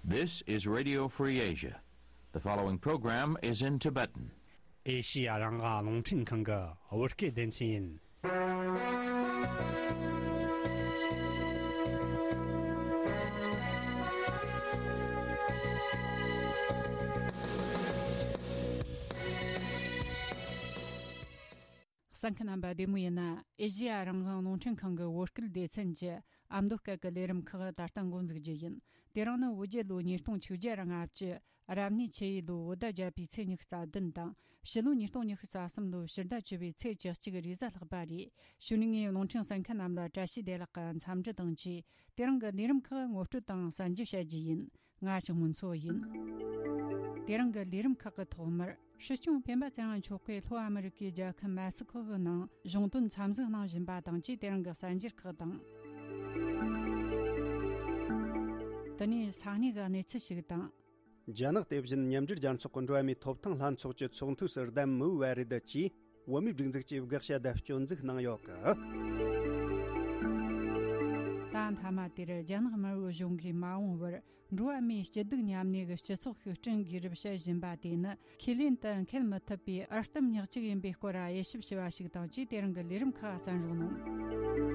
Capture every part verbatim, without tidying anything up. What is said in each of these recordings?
This is Radio Free Asia. The following program is in Tibetan. ཨེ་ཤི་ཡ་རང་དབང་རླུང་འཕྲིན་ཁང་གི་བོད་སྐད་སྡེ་ཚན་ཡིན། གསན་མཁན་རྣམ་པ་བདེ་མོ་ཡིན་ན། ཨེ་ཤི་ཡ་རང་དབང་རླུང་འཕྲིན་ཁང་གི་བོད་སྐད་སྡེ་ཚན་གྱི་ཨ་མདོ་སྐད་ཀྱི་ལས་རིམ་ཁག་ད་ལྟ་འགོ་འཛུགས་རྒྱུ་ཡིན། དེ་རིང་ནི་བོད་རྒྱལ་ལོ་ཉིས་སྟོང་ཆིག་བརྒྱ་ལྔ་བཅུ། རབ་གནས་ཆུ་ཡོས་ལོའི་བོད་ཟླ་བརྒྱད་པའི་ཚེས་ཉི་ཤུ་རྩ་བདུན་དང་། ཕྱི་ལོ་ཉིས་སྟོང་ཉི་ཤུ་རྩ་གསུམ་ལོའི་ཕྱི་ཟླ་བཅུ་པའི་ཚེས་བཅུ་གཅིག་རེས་གཟའ་ལྷག་པ་རེད། གཞུག་ནས་ངས་རླུང་འཕྲིན་གསན་མཁན་རྣམས་ལ་བཀྲ་ཤིས་བདེ་ལེགས་ཀྱི་འཚམས་འདྲི་དང་བཅས། དེ་རིང་གི་ལས་རིམ་ཁག་ངོ་སྤྲོད་དང་གསན་རྒྱུ་བྱ་རྒྱུ་ཡིན། ང་ཞིག་སྔོན་འཚོ་ཡིན། དེ་རིང་གི་ལས་རིམ་ཁག་གི་ཐོག་མར། སྲིད་སྐྱོང་སྤེན་པ་ཚེ་རིང་མཆོག་གིས་ལྷོ་ཨ་མི་རི་ཀའི་རྒྱལ་ཁབ་མེག་སི་ཁོ་གི་ནང་གཞུང་དོན་འཚམས་གཟིགས་གནང་བཞིན་པ་དང་བཅས། དེ་རིང་གི་གསར་འགྱུར་ཁག་དང་། དེ་ནས་ས་གནས་ཀྱི་གནས་ཚུལ་ཞིག་དང་། རྒྱ་ནག་དེ་བཞིན་མཉམ་འབྲེལ་རྒྱལ་ཚོགས་ཀྱི་འགྲོ་བ་མིའི་ཐོབ་ཐང་ལྷན་ཚོགས་ཀྱི་ཚོགས་འཐུས་སུ་ལྡན་མུའུ་ཝེ་རི་ཏི་གྱིས་བོད་མིའི་སྒྲིག་འཛུགས་ཀྱི་དགག་བྱ་དེ་སྐྱོན་འཛུགས་གནང་ཡོད་གི། ད་མཐའ་མ་དེར་རྒྱ་ནག་དམར་པོའི་གཞུང་གིས་མ་འོངས་པར། འགྲོ་བ་མིའི་སྐྱིད་སྡུག་མཉམ་གནས་ཀྱི་སྤྱི་ཚོགས་ཤིག་བསྐྲུན་དགོས་རབས་བཤད་བཞིན་པ་དེ་ནི་ཁས་ལེན་དུ་འཁེལ་མི་ཐུབ་པའི་ཨར་གཏམ་ཉག་གཅིག་ཡིན་པའི་སྐོར་དབྱེ་ཞིབ་ཞུ་བ་ཞིག་དང་བཅས། དེ་རིང་གི་ལས་རིམ་ཁག་གསན་རོགས་གནང་།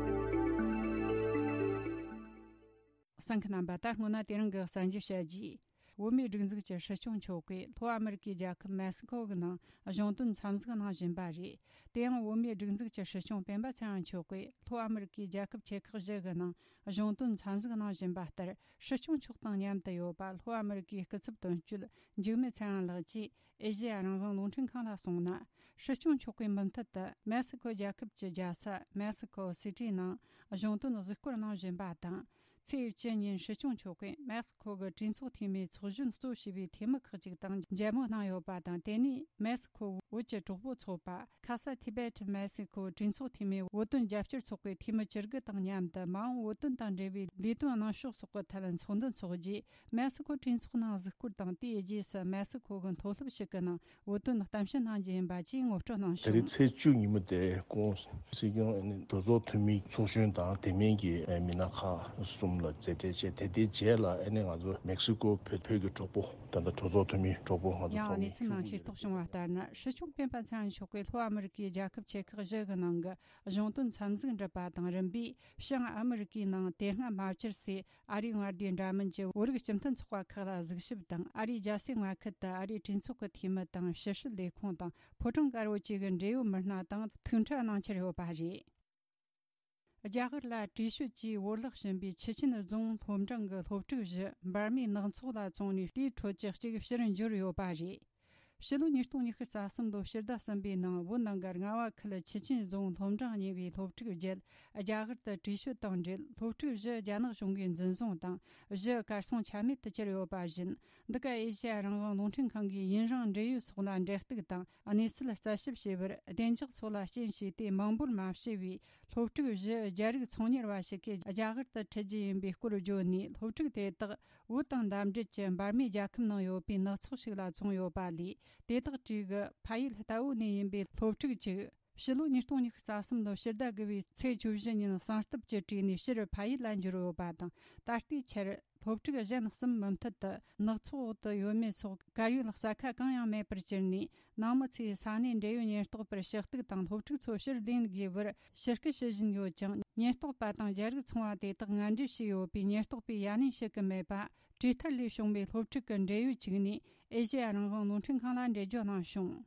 གསན་མཁན་རྣམ་པ། ད་སྔོན་ན་དེ་རིང་གི་གསར་འགྱུར་བཤད་རྒྱུ། བོད་མིའི་སྒྲིག་འཛུགས་ཀྱི་སྲིད་སྐྱོང་མཆོག་གིས་ལྷོ་ཨ་མི་རི་ཀའི་རྒྱལ་ཁབ་མེག་སི་ཁོ་གི་ནང་གཞུང་དོན་འཚམས་གཟིགས་གནང་བཞིན་པ་རེད། དེ་ཡང་བོད་མིའི་སྒྲིག་འཛུགས་ཀྱི་སྲིད་སྐྱོང་སྤེན་པ་ཚེ་རིང་མཆོག་གིས་ལྷོ་ཨ་མི་རི་ཀའི་རྒྱལ་ཁབ་ཆེ་ཁག་བཞི་གི་ནང་གཞུང་དོན་འཚམས་གཟིགས་གནང་བཞིན་པ་ལྟར། སྲིད་སྐྱོང་མཆོག་དང་མཉམ་དུ་ཡོད་པ་ལྷོ་ཨ་མི་རི་ཀའི་སྐུ་ཚབ་དོན་གཅོད་འཇིགས་མེད་ཚེ་རིང་ལགས་ཀྱིས་ཨེ་ཤེ་ཡ་རང་དབང་རླུང་འཕྲིན་ཁང་ལ་གསུངས་ན། སྲིད་སྐྱོང་མཆོག་གིས་མུ་མཐུད་དུ་མེག་སི་ཁོ་རྒྱལ་ཁབ་ཀྱི་རྒྱལ་ས་མེག་སི་ཁོ་སི་ཊི་ནང་གཞུང་དོན་གཟིགས་སྐོར་གནང་བཞིན་པ་དང་། ཚེས་བཅུ་ཉིན་སྲིད་སྐྱོང་མཆོག་གིས་མེག་སི་ཁོ་གི་གྲོས་ཚོགས་འཐུས་མིའི་ཚོགས་གཞོན་གཙོ་བྱས་པའི་འཐུས་མི་ཁག་ཅིག་དང་མཇལ་མོལ་གནང་ཡོད་པ་དང་། དེ་ནས་མེག་སི་ཁོ་བོད་ཀྱི་གྲོགས་པོ་ཚོགས་པ། ཁ་ས་ཐི་བེད་མེག་སི་ཁོ་གྲོས་ཚོགས་འཐུས་མིའི་བོད་དོན་རྒྱབ་སྐྱོར་ཚོགས་པའི་འཐུས་མི་བཅུ་དགུ་དང་མཉམ་དུ་མ་འོངས་བོད་དོན་དང་འབྲེལ་བའི་ལས་དོན་གནང་ཕྱོགས་སོགས་ཀྱི་ཐད་ཚོགས་འདུ་འཚོགས་རྗེས། མེག་སི་ཁོ་གྲོས་ཚོགས་ནང་གཟིགས་སྐོར་དང་། དེའི་རྗེས་སུ་མེག་སི་ཁོ་གི་མཐོ་སློབ་ཞིག་གི་ནང་བོད་དོན་གཏམ་བཤད་གནང་རྒྱུ་ཡིན་པ་བཅས་ངོ་སྤྲོད་གནང་ད་རེས་བྱུང་། ཚེས་བཅུ་ཉིན་མོ་དེ་སྐུ་ངོ་སྲིད་སྐྱོང་ཨ་ནི་གྲོས་ཚོགས་འཐུས་མི་ཚོགས་གཞོན་དང་དེ་མིན་གྱི་མི་སྣ་ཁག་གསུམ་ལ་མཛད་བྲེལ་བྱས། དེ་དེའི་རྗེས་ལ་ཨ་ནི་ང་ཚོ་མེག་སི་ཀོ་བོད་བོད་ཀྱི་གྲོགས་པོ། ད་ལྟ་གྲོས་ཚོགས་འཐུས་མིའི་གྲོགས་པོ་ང་ཚོ་ཡང་ཚོགས་གནས་ཚུལ་ནང་ཤེས་རྟོགས་བྱུང་བ་ལྟར་ན། སྲིད་སྐྱོང་སྤེན་པ་ཚེ་རིང་མཆོག་གིས་ལྷོ་ཨ་མི་རི་ཀའི་རྒྱལ་ཁབ་ཆེ་ཁག་བཞི་གི་ནང་གི་གཞུང་དོན་འཚམས་གཟིགས་འགྲུབ་པ་དང་རིམ་པས། བྱང་ཨ་མི་རི་ཀའི་ནང་དེ་སྔ་མ་བཅར་སའི་ཨ་རིའི་མངའ་སྡེ་འདྲ་མིན་གྱི་བོད་རིགས་སྤྱི་མཐུན་ཚོགས་པ་ཁག་ལ་གཟིགས་ཞིབ་དང་། ཨ་རིའི་རྒྱལ་སའི་མངའ་ཁུལ་དུ་ཨ་རིའི་གྲོས་ཚོགས་ཀྱི་འཐུས་མི་དང་། ཕྱི་སྲིད་ལས་ཁུངས་དང་ཕོ་བྲང་དཀར་པོ་བཅས་ཀྱི་འབྲེལ་ཡོད་མི་སྣ་དང་ཐུག་འཕྲད་གནང་འཆར་ཡོད་པ་རེད། རྒྱ་གར་ལ་བྲོས་བྱོལ་གྱིས་བོར་བརླག་ཕྱིན་པའི་ཆུ་ཆེན་རྫོང་སློབ་འབྲིང་གི་སློབ་ཕྲུག་བཞི་འབར་མའི་ནག་ཚོགས་ལ་བཙོངས་ནས་དེའི་ཁྲོད་ཀྱི་གཅིག་ཕྱིར་འབྱོར་ཡོད་པ་རེད། ཕྱི་ལོ་ཉིས་སྟོང་ཉི་ཤུ་རྩ་གསུམ་ལོའི་ཕྱི་ཟླ་གསུམ་པའི་ནང་བོད་ནང་གི་རྔ་བ་ཁུལ་ཆུ་ཆེན་རྫོང་སློབ་འབྲིང་གཉིས་པའི་སློབ་ཕྲུག་བརྒྱད་རྒྱ་གར་དུ་བྲོས་བྱོལ་དང་འབྲེལ། སློབ་ཕྲུག་བཞི་རྒྱ་ནག་གཞུང་གིས་འཛིན་བཟུང་དང་། བཞི་གར་སོང་ཆ་མེད་དུ་གྱུར་ཡོད་པ་བཞིན། འདི་ག་ཨེ་ཤེ་ཡ་རང་དབང་རླུང་འཕྲིན་ཁང་གིས་ཡུན་རིང་འབྲེལ་ཡོད་སོགས་ལ་འབྲེལ་གཏུག་དང་གནས་ཚུལ་རྩད་ཞིབ་བྱས་པར། བདེ་འཇགས་ཚོ་ལ་རྐྱེན་བྱས་ཏེ་མང་འབོར་མ་བྱས་པའི་སློབ་ཕྲུག་བཞི་རྒྱ་རིགས་ཚོང་གཉེར་བ་ཞིག་གིས་རྒྱ་གར་དུ་ཁྲིད་རྒྱུ་ཡིན་པའི་སྐོར་བརྗོད་ནས། སློབ་ཕྲུག་དེ་དག་བོད་དང་འདབས་འབྲེལ་གྱི་འབར་མའི་རྒྱལ་ཁབ་ནང་ཡོད་པའི་ནག་ཚོགས་ཤིག་ལ་བཙོངས་ཡོད་པ་ལས། དེ་དག་གྲས་ཀྱི་ཕ་ཡུལ་རྟ་བོ་ནས་ཡིན་པའི་སློབ་ཕྲུག་གཅིག་ཕྱི་ལོ་ཉིས་སྟོང་ཉི་ཤུ་རྩ་གསུམ་ལོའི་ཕྱི་ཟླ་དགུ་པའི་ཚེས་བཅུ་བཞི་ཉིན་གསང་སྟབས་ཀྱི་བྲོས་ནས་ཕྱིར་ཕ་ཡུལ་ལ་འབྱོར་ཡོད་པ་དང་། ད་ལྟའི་ཆར་སློབ་ཕྲུག་གཞན་གསུམ་མུ་མཐུད་དུ་ནག་ཚོགས་འོག་ཏུ་ཡོད་མེད་སོགས་གར་ཡོད་ས་ཁ་གང་ཡང་མེད་པར་གྱུར་ནས། ནང་མི་ཚོས་ས་གནས་འབྲེལ་ཡོད་ཉེན་རྟོག་པར་ཞུ་གཏུག་དང་། སློབ་ཕྲུག་ཚོ་ཕྱིར་ལེན་དགོས་པར་ཕྱིར་སྐུལ་ཞུ་བཞིན་ཡོད་ཀྱང་། ཉེན་རྟོག་པ་དང་རྒྱ་རིགས་ཚོང་བ་དེ་དག་ངན་འབྲེལ་བྱས་ཡོད་པའི་ཉེན་རྟོག་པས་ཡ་ལན་ཞུ་གི་མེད་པ། གྲོས་མཐར་ལས་བྱུང་བའི་སློབ་ཕྲུག་གི་འབྲེལ་ཡོད་ཅིག་ནས་ཨེ་ཤེ་ཡ་རང་དབང་རླུང་འཕྲིན་ཁང་ལ་འགྲེལ་བརྗོད་གནང་བྱུང་།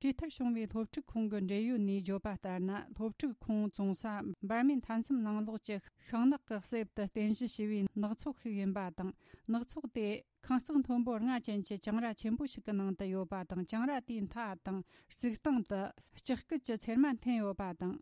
གྲོས་མཐར་བྱུང་བའི་སློབ་ཕྲུག་ཁོང་གི་འབྲེལ་ཡོད་ནས་བརྗོད་པ་ལྟར་ན། སློབ་ཕྲུག་ཁོང་བཙོང་ས་འབར་མའི་མཐའ་མཚམས་ནང་ལོགས་ཀྱི་ཤིང་ནགས་ཀྱི་གསེབ་ཏུ་རྟེན་གཞི་བྱས་པའི་ནགས་ཚོགས་ཤིག་ཡིན་པ་དང་། ནགས་ཚོགས་དེ་ཁང་བརྩེགས་མཐོན་པོ་ལྔ་ཅན་གྱི་གྱང་ར་ཆེན་པོ་ཞིག་གི་ནང་དུ་ཡོད་པ་དང་། གྱང་ར་དེའི་མཐའ་དང་རྩིག་སྟེང་དུ་ལྕགས་སྐུད་ཀྱི་ཚེར་མ་འཐེན་ཡོད་པ་དང་།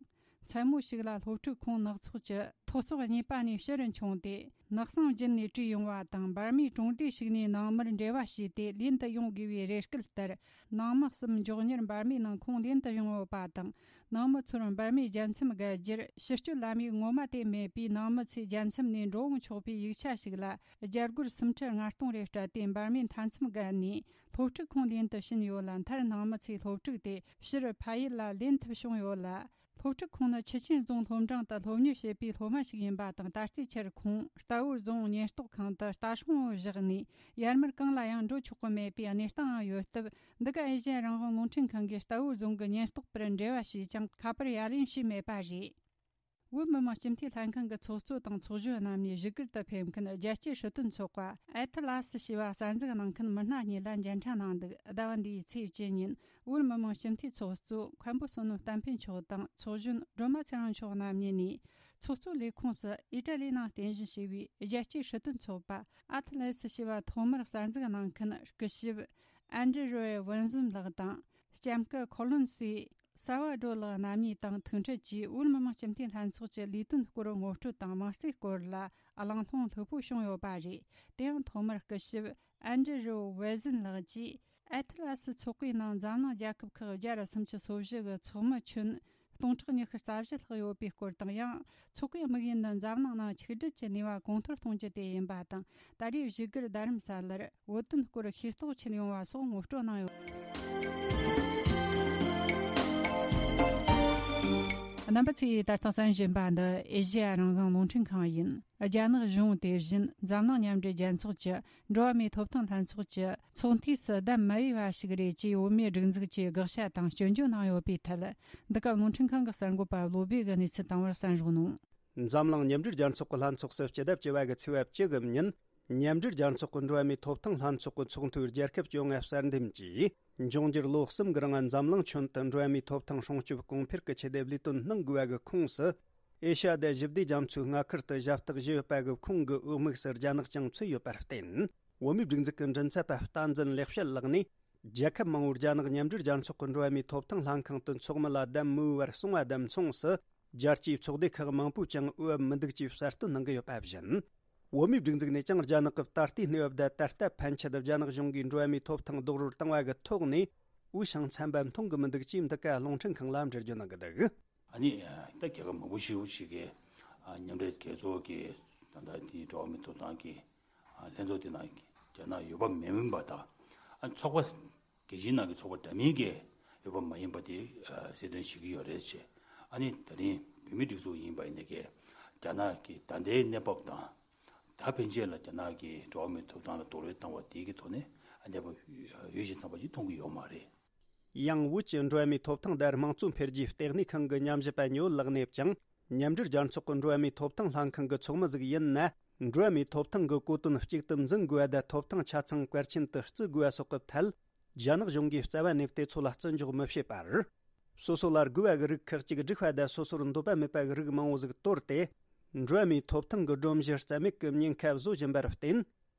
མཚན་མོ་ཞིག་ལ་སློབ་ཕྲུག་ཁོང་ནགས་ཚོགས་ཀྱི་ཐོག་བརྩེགས་གཉིས་པ་ནས་ཕྱིར་མཆོངས་ཏེ། ནགས་གསེང་བརྒྱུད་ནས་བྲོས་ཡོང་བ་དང་། འབར་མའི་གྲོང་སྡེ་ཞིག་ནས་ནང་མིར་འབྲེལ་བ་བྱས་ཏེ་ལེན་དུ་ཡོང་དགོས་པའི་རེ་སྐུལ་ལྟར། ནང་མི་གསུམ་མགྱོགས་མྱུར་འབར་མའི་ནང་ཁོངས་ལེན་དུ་ཡོང་ཡོད་པ་དང་། ནང་མི་ཚོར་འབར་མའི་རྒྱལ་མཚམས་བརྒལ་རྒྱུར་ཕྱིར་སྐྱོད་ལམ་ཡིག་ངོ་མ་དེ་མེད་པས། ནང་མི་ཚོས་རྒྱལ་མཚམས་ནས་འགྲོ་འོང་ཆོག་པའི་ཡིག་ཆ་ཞིག་ལ་རྒྱ་སྒོར་སུམ་ཁྲི་ལྔ་སྟོང་རེ་སྤྲད་དེ། འབར་མའི་མཐའ་མཚམས་བརྒལ་ནས་སློབ་ཕྲུག་ཁོང་ལེན་དུ་ཕྱིན་ཡོད་ལ། མཐར་ནང་མི་ཚོས་སློབ་ཕྲུག་དེ་ཕྱིར་ཕ་ཡུལ་ལ་ལེན་ཐུབ་བྱུང་ཡོད་ལ། སློབ་ཕྲུག་ཁོང་ནི་ཆུ་ཆེན་རྫོང་སློབ་འབྲིང་དུ་སློབ་གཉེར་བྱེད་པའི་སློབ་མ་ཞིག་ཡིན་པ་དང་། ད་ལྟའི་ཆར་ཁོང་རྟ་བོ་རྫོང་ཉེན་རྟོག་ཁང་དུ་རྟ་སྲུང་བཞག་ནས། ཡར་མར་གང་ལ་ཡང་འགྲོ་ཆོག་གི་མེད་པའི་གནས་སྟངས་ཡང་ཡོད་སྟབས། འདི་ག་ཨེ་ཤ་ཡ་རང་དབང་རླུང་འཕྲིན་ཁང་གིས་རྟ་བོ་རྫོང་གི་ཉེན་རྟོག་པར་འབྲེལ་བ་བྱས་ཀྱང་། ཁ་པར་ཡ་ལན་བྱས་མེད་པ་རེད། བོད་མི་མང་སྤྱི་འཐུས་ལྷན་ཁང་གི་ཚོགས་གཙོ་དང་ཚོགས་གཞོན་རྣམ་གཉིས་བཞུགས་སྒར་དུ་ཕེབས་མཁན་རྒྱལ་གཅེས་སྲིད་དོན་ཚོགས་པ་ཨེ་ཐི་ལ་སི་ཞེས་པ་གསར་འཛུགས་གནང་མཁན་མི་སྣ་གཉིས་ལ་མཇལ་འཕྲད་གནང་འདུག་ཟླ་བ་འདིའི་ཚེས་བཅུ་ཉིན་བོད་མི་མང་སྤྱི་འཐུས་ཚོགས་གཙོ་མཁན་པོ་བསོད་ནམས་བསྟན་འཕེལ་མཆོག་དང་ཚོགས་གཞོན་སྒྲོལ་མ་ཚེ་རིང་མཆོག་རྣམ་གཉིས་ནས། ཚོགས་གཙོ་ལས་ཁུངས་སུ་ཨི་ཊ་ལི་ནང་རྟེན་གཞི་བྱས་པའི་རྒྱལ་གཅེས་སྲིད་དོན་ཚོགས་པ་ཨེ་ཐི་ལ་སི་ཞེས་པ་ཐོག་མར་གསར་འཛུགས་གནང་མཁན་སྐུ་ཞབས་ཨན་ཌྲེ་རོའེ་ཝན་ཟུམ་ལགས་དང་། ལྕམ་སྐུ་ཁོ་ལོན་སི་ས་བ་ཌོ་ལགས་རྣམ་གཉིས་དང་ཐུག་འཕྲད་ཀྱིས། བོད་མི་མང་སྤྱི་འཐུས་ལྷན་ཚོགས་ཀྱི་ལས་དོན་སྐོར་ངོ་སྤྲོད་དང་། དམངས་གཙོའི་སྐོར་ལ་གླེང་སློང་ལྷུག་པོ་བྱུང་ཡོད་པ་རེད། དེ་ཡང་ཐོག་མར་སྐུ་ཞབས་ཨན་ཌྲེ་རོ་ཝེ་ཟིན་ལགས་ཀྱིས། ཨེ་ཐི་ལ་སི་ཚོགས་པའི་ནང་འཛམ་གླིང་རྒྱལ་ཁབ་ཁག་བརྒྱ་ར་སུམ་ཅུ་སོ་བཞི་གི་ཚོགས་མི་ཁྱོན་སྟོང་ཕྲག་ཉི་ཤུ་རྩ་བཞི་ལྷག་ཡོད་པའི་སྐོར་དང་། ཡང་ཚོགས་པའི་དམིགས་ཡུལ་ནི་འཛམ་གླིང་ནང་ཆིག་སྒྲིལ་གྱི་ནུས་པ་གོང་མཐོར་གཏོང་རྒྱུ་དེ་ཡིན་པ་དང་། ད་རེས་བཞུགས་སྒར་རྡ་རམ་ས་ལར་བོད་དོན་སྐོར་ཤེས་རྟོགས་ཆེར་ཡོང་བ་སོགས་ངོ་སྤྲོད་གནང་ཡོད། རྣམ་པ་ཚོས་ད་ལྟ་གསན་བཞིན་པ་འདི་ཨེ་ཤེ་ཡ་རང་དབང་རླུང་འཕྲིན་ཁང་ཡིན། རྒྱ་ནག་གཞུང་དེ་བཞིན་འཛམ་གླིང་མཉམ་འབྲེལ་རྒྱལ་ཚོགས་ཀྱི་འགྲོ་བ་མིའི་ཐོབ་ཐང་ལྷན་ཚོགས་ཀྱི་ཚོགས་འཐུས་སུ་བདམས་མ་འོས་པ་ཞིག་རེད་ཅེས་བོད་མིའི་སྒྲིག་འཛུགས་ཀྱིས་དགག་བྱ་དང་སྐྱོན་བརྗོད་གནང་ཡོད་པའི་ཐད། འདི་སྐབས་རླུང་འཕྲིན་ཁང་གི་གསར་འགོད་པ་བློ་བྷེ་གིས་གནས་ཚུལ་བཏང་བར་གསན་རོགས་གནང་། འཛམ་གླིང་མཉམ་འབྲེལ་རྒྱལ་ཚོགས་ཀྱི་ལྷན་ཚོགས་སུ་སྤྱི་ཟླ་བཅུ་བ་གི་ཚེས་པ་བཅུ་གི་ཉིན། མཉམ་འབྲེལ་རྒྱལ་ཚོགས་ཀྱི་འགྲོ་བ་མིའི་ཐོབ་ཐང་ལྷན་ཚོགས་ཀྱི་ཚོགས་འདུའི་རྒྱལ་ཁབ་བཅོ་ལྔ་གསར་འདེམས་ཀྱིས། འབྱུང་འགྱུར་ལོ་གསུམ་གྱི་རིང་འཛམ་གླིང་ཁྱོན་དུ་འགྲོ་བ་མིའི་ཐོབ་ཐང་སྲུང་སྐྱོབ་གོང་འཕེལ་གྱི་ཆེད་དུ་ལས་དོན་གནང་དགོས་པ་གི་ཁོངས་སུ། ཨེ་ཤ་ཡ་དང་ཞི་བདེ་རྒྱ་མཚོའི་མངའ་ཁུལ་དུ་ཞབས་སྟེགས་ཞུས་ཡོད་པ་གི་ཁོངས་ཀྱི་འོས་དམིགས་སུ་རྒྱ་ནག་ཀྱང་ཚུད་ཡོད་པར་བརྟེན། བོད་མིའི་སྒྲིག་འཛུགས་ཀྱི་མགྲིན་ཚབ་པ་བསྟན་འཛིན་ལེགས་བཤད་ལགས་ནས། རྒྱལ་ཁབ་མང་པོར་རྒྱ་ནག་མཉམ་འབྲེལ་རྒྱལ་ཚོགས་ཀྱི་འགྲོ་བ་མིའི་ཐོབ་ཐང་ལྷན་ཁང་དུ་ཚོགས་མི་ལ་བདམས་མི་འོས་པར་གསུངས་པ་དང་མཚུངས་སུ། རྒྱལ་སྤྱིའི་ཚོགས་སྡེ་ཁག་མང་པོས་ཀྱང་འོས་བབ་མི་འདུག་ཅེས་གསལ་སྟོན་གནང་གི་ཡོད་པ་བཞིན། བོད་མིའི་སྒྲིག་འཛུགས་ནས་ཀྱང་རྒྱ་ནག་གི་ད་ལྟའི་གནས་བབ་དང་ད་ལྟ་ཕན་ཆད་རྒྱ་ནག་གཞུང་གིས་འགྲོ་བ་མིའི་ཐོབ་ཐང་རྡོག་རོལ་བཏང་བ་གི་ཐོག་ནས་འོས་ཤིང་འཚམས་པ་མཐོང་གི་མི་འདུག་ཅེས་འདི་ག་རླུང་འཕྲིན་ཁང་ལ་འགྲེལ་བརྗོད་གནང་གི་འདུག་ཨ་ནི་ད་རྒྱལ་ཁབ་མང་པོ་ཞེ་པོ་ཞིག་གིས་མཉམ་འབྲེལ་རྒྱལ་ཚོགས་ཀྱི་ད་ལྟ་དེའི་འགྲོ་བ་མིའི་ཐོབ་ཐང་གི་ལྷན་ཚོགས་དེ་ནང་རྒྱ་ནག་འོས་བབ་མེད་མིན་པ་དང་། ཚོགས་པ་རྒྱལ་སྤྱིའི་ནང་གི་ཚོགས་པ་འདྲ་མིན་གྱི་འོས་བབ་མ་ཡིན་པ་དེ་གསལ་སྟོན་བྱེད་ཀྱི་ཡོད་རེད་ཅེས། ཨ་ནི་ད་རིང་བོད་མིའི་སྒྲིག་འཛུགས་ཡིན་པ་ཡིན་ནའི་རྒྱ་ནག་གི་ད་ལྟའི་གནས་བབ་དང་། ད་ཕན་ཆད་ལ་རྒྱ་ནག་གིས་འགྲོ་བ་མིའི་ཐོབ་ཐང་ལ་རྡོག་རོལ་བཏང་བ་དེ་གི་ཐོག་ནས་གནས་བབ་ཡོད་ཞིང་ཚང་པ་ཞིག་མཐོང་གི་ཡོད་མ་རེད། ཡང་བོད་ཀྱི་འགྲོ་བ་མིའི་ཐོབ་ཐང་དང་དམངས་གཙོ་འཕེལ་རྒྱས་ལྟེ་གནས་ཁང་གི་ཉམས་ཞིབ་པ་ཉི་འོད་ལགས་ནས་ཀྱང་། མཉམ་འབྲེལ་རྒྱལ་ཚོགས་ཀྱི་འགྲོ་བ་མིའི་ཐོབ་ཐང་ལྷན་ཁང་གི་ཚོགས་མི་ཟིག་ཡིན་ན། འགྲོ་བ་མིའི་ཐོབ་ཐང་གི་གོ་དོན་གཅིག་ཏུ་འཛིན་དགོས་པ་དང་། ཐོབ་ཐང་ཆ་ཚང་གལ་ཆེན་དུ་བརྩི་དགོས་པ་སོགས་ཀྱི་ཐད། རྒྱ་ནག་གཞུང་གིས་རྩ་བ་ནས་དེ་ཚོ་ལ་བརྩི་འཇོག་མི་བྱེད་པར། སོ་སོ་ལ་དགོས་པ་གི་རིགས་ཁག་ཅིག་བསྒྲིགས་པ་དང་། སོ་སོར་འདོད་པ་མེད་པ་གི་རིགས་མང་བོ་ཟིག་དོར་ཏེ། འགྲོ་བ་མིའི་ཐོབ་ཐང་གི་སྒྲོམ་གཞི་རྩ་མེད་ཀྱི་ཉེན་ཁ་བཟོ་བཞིན་པར་བརྟེན།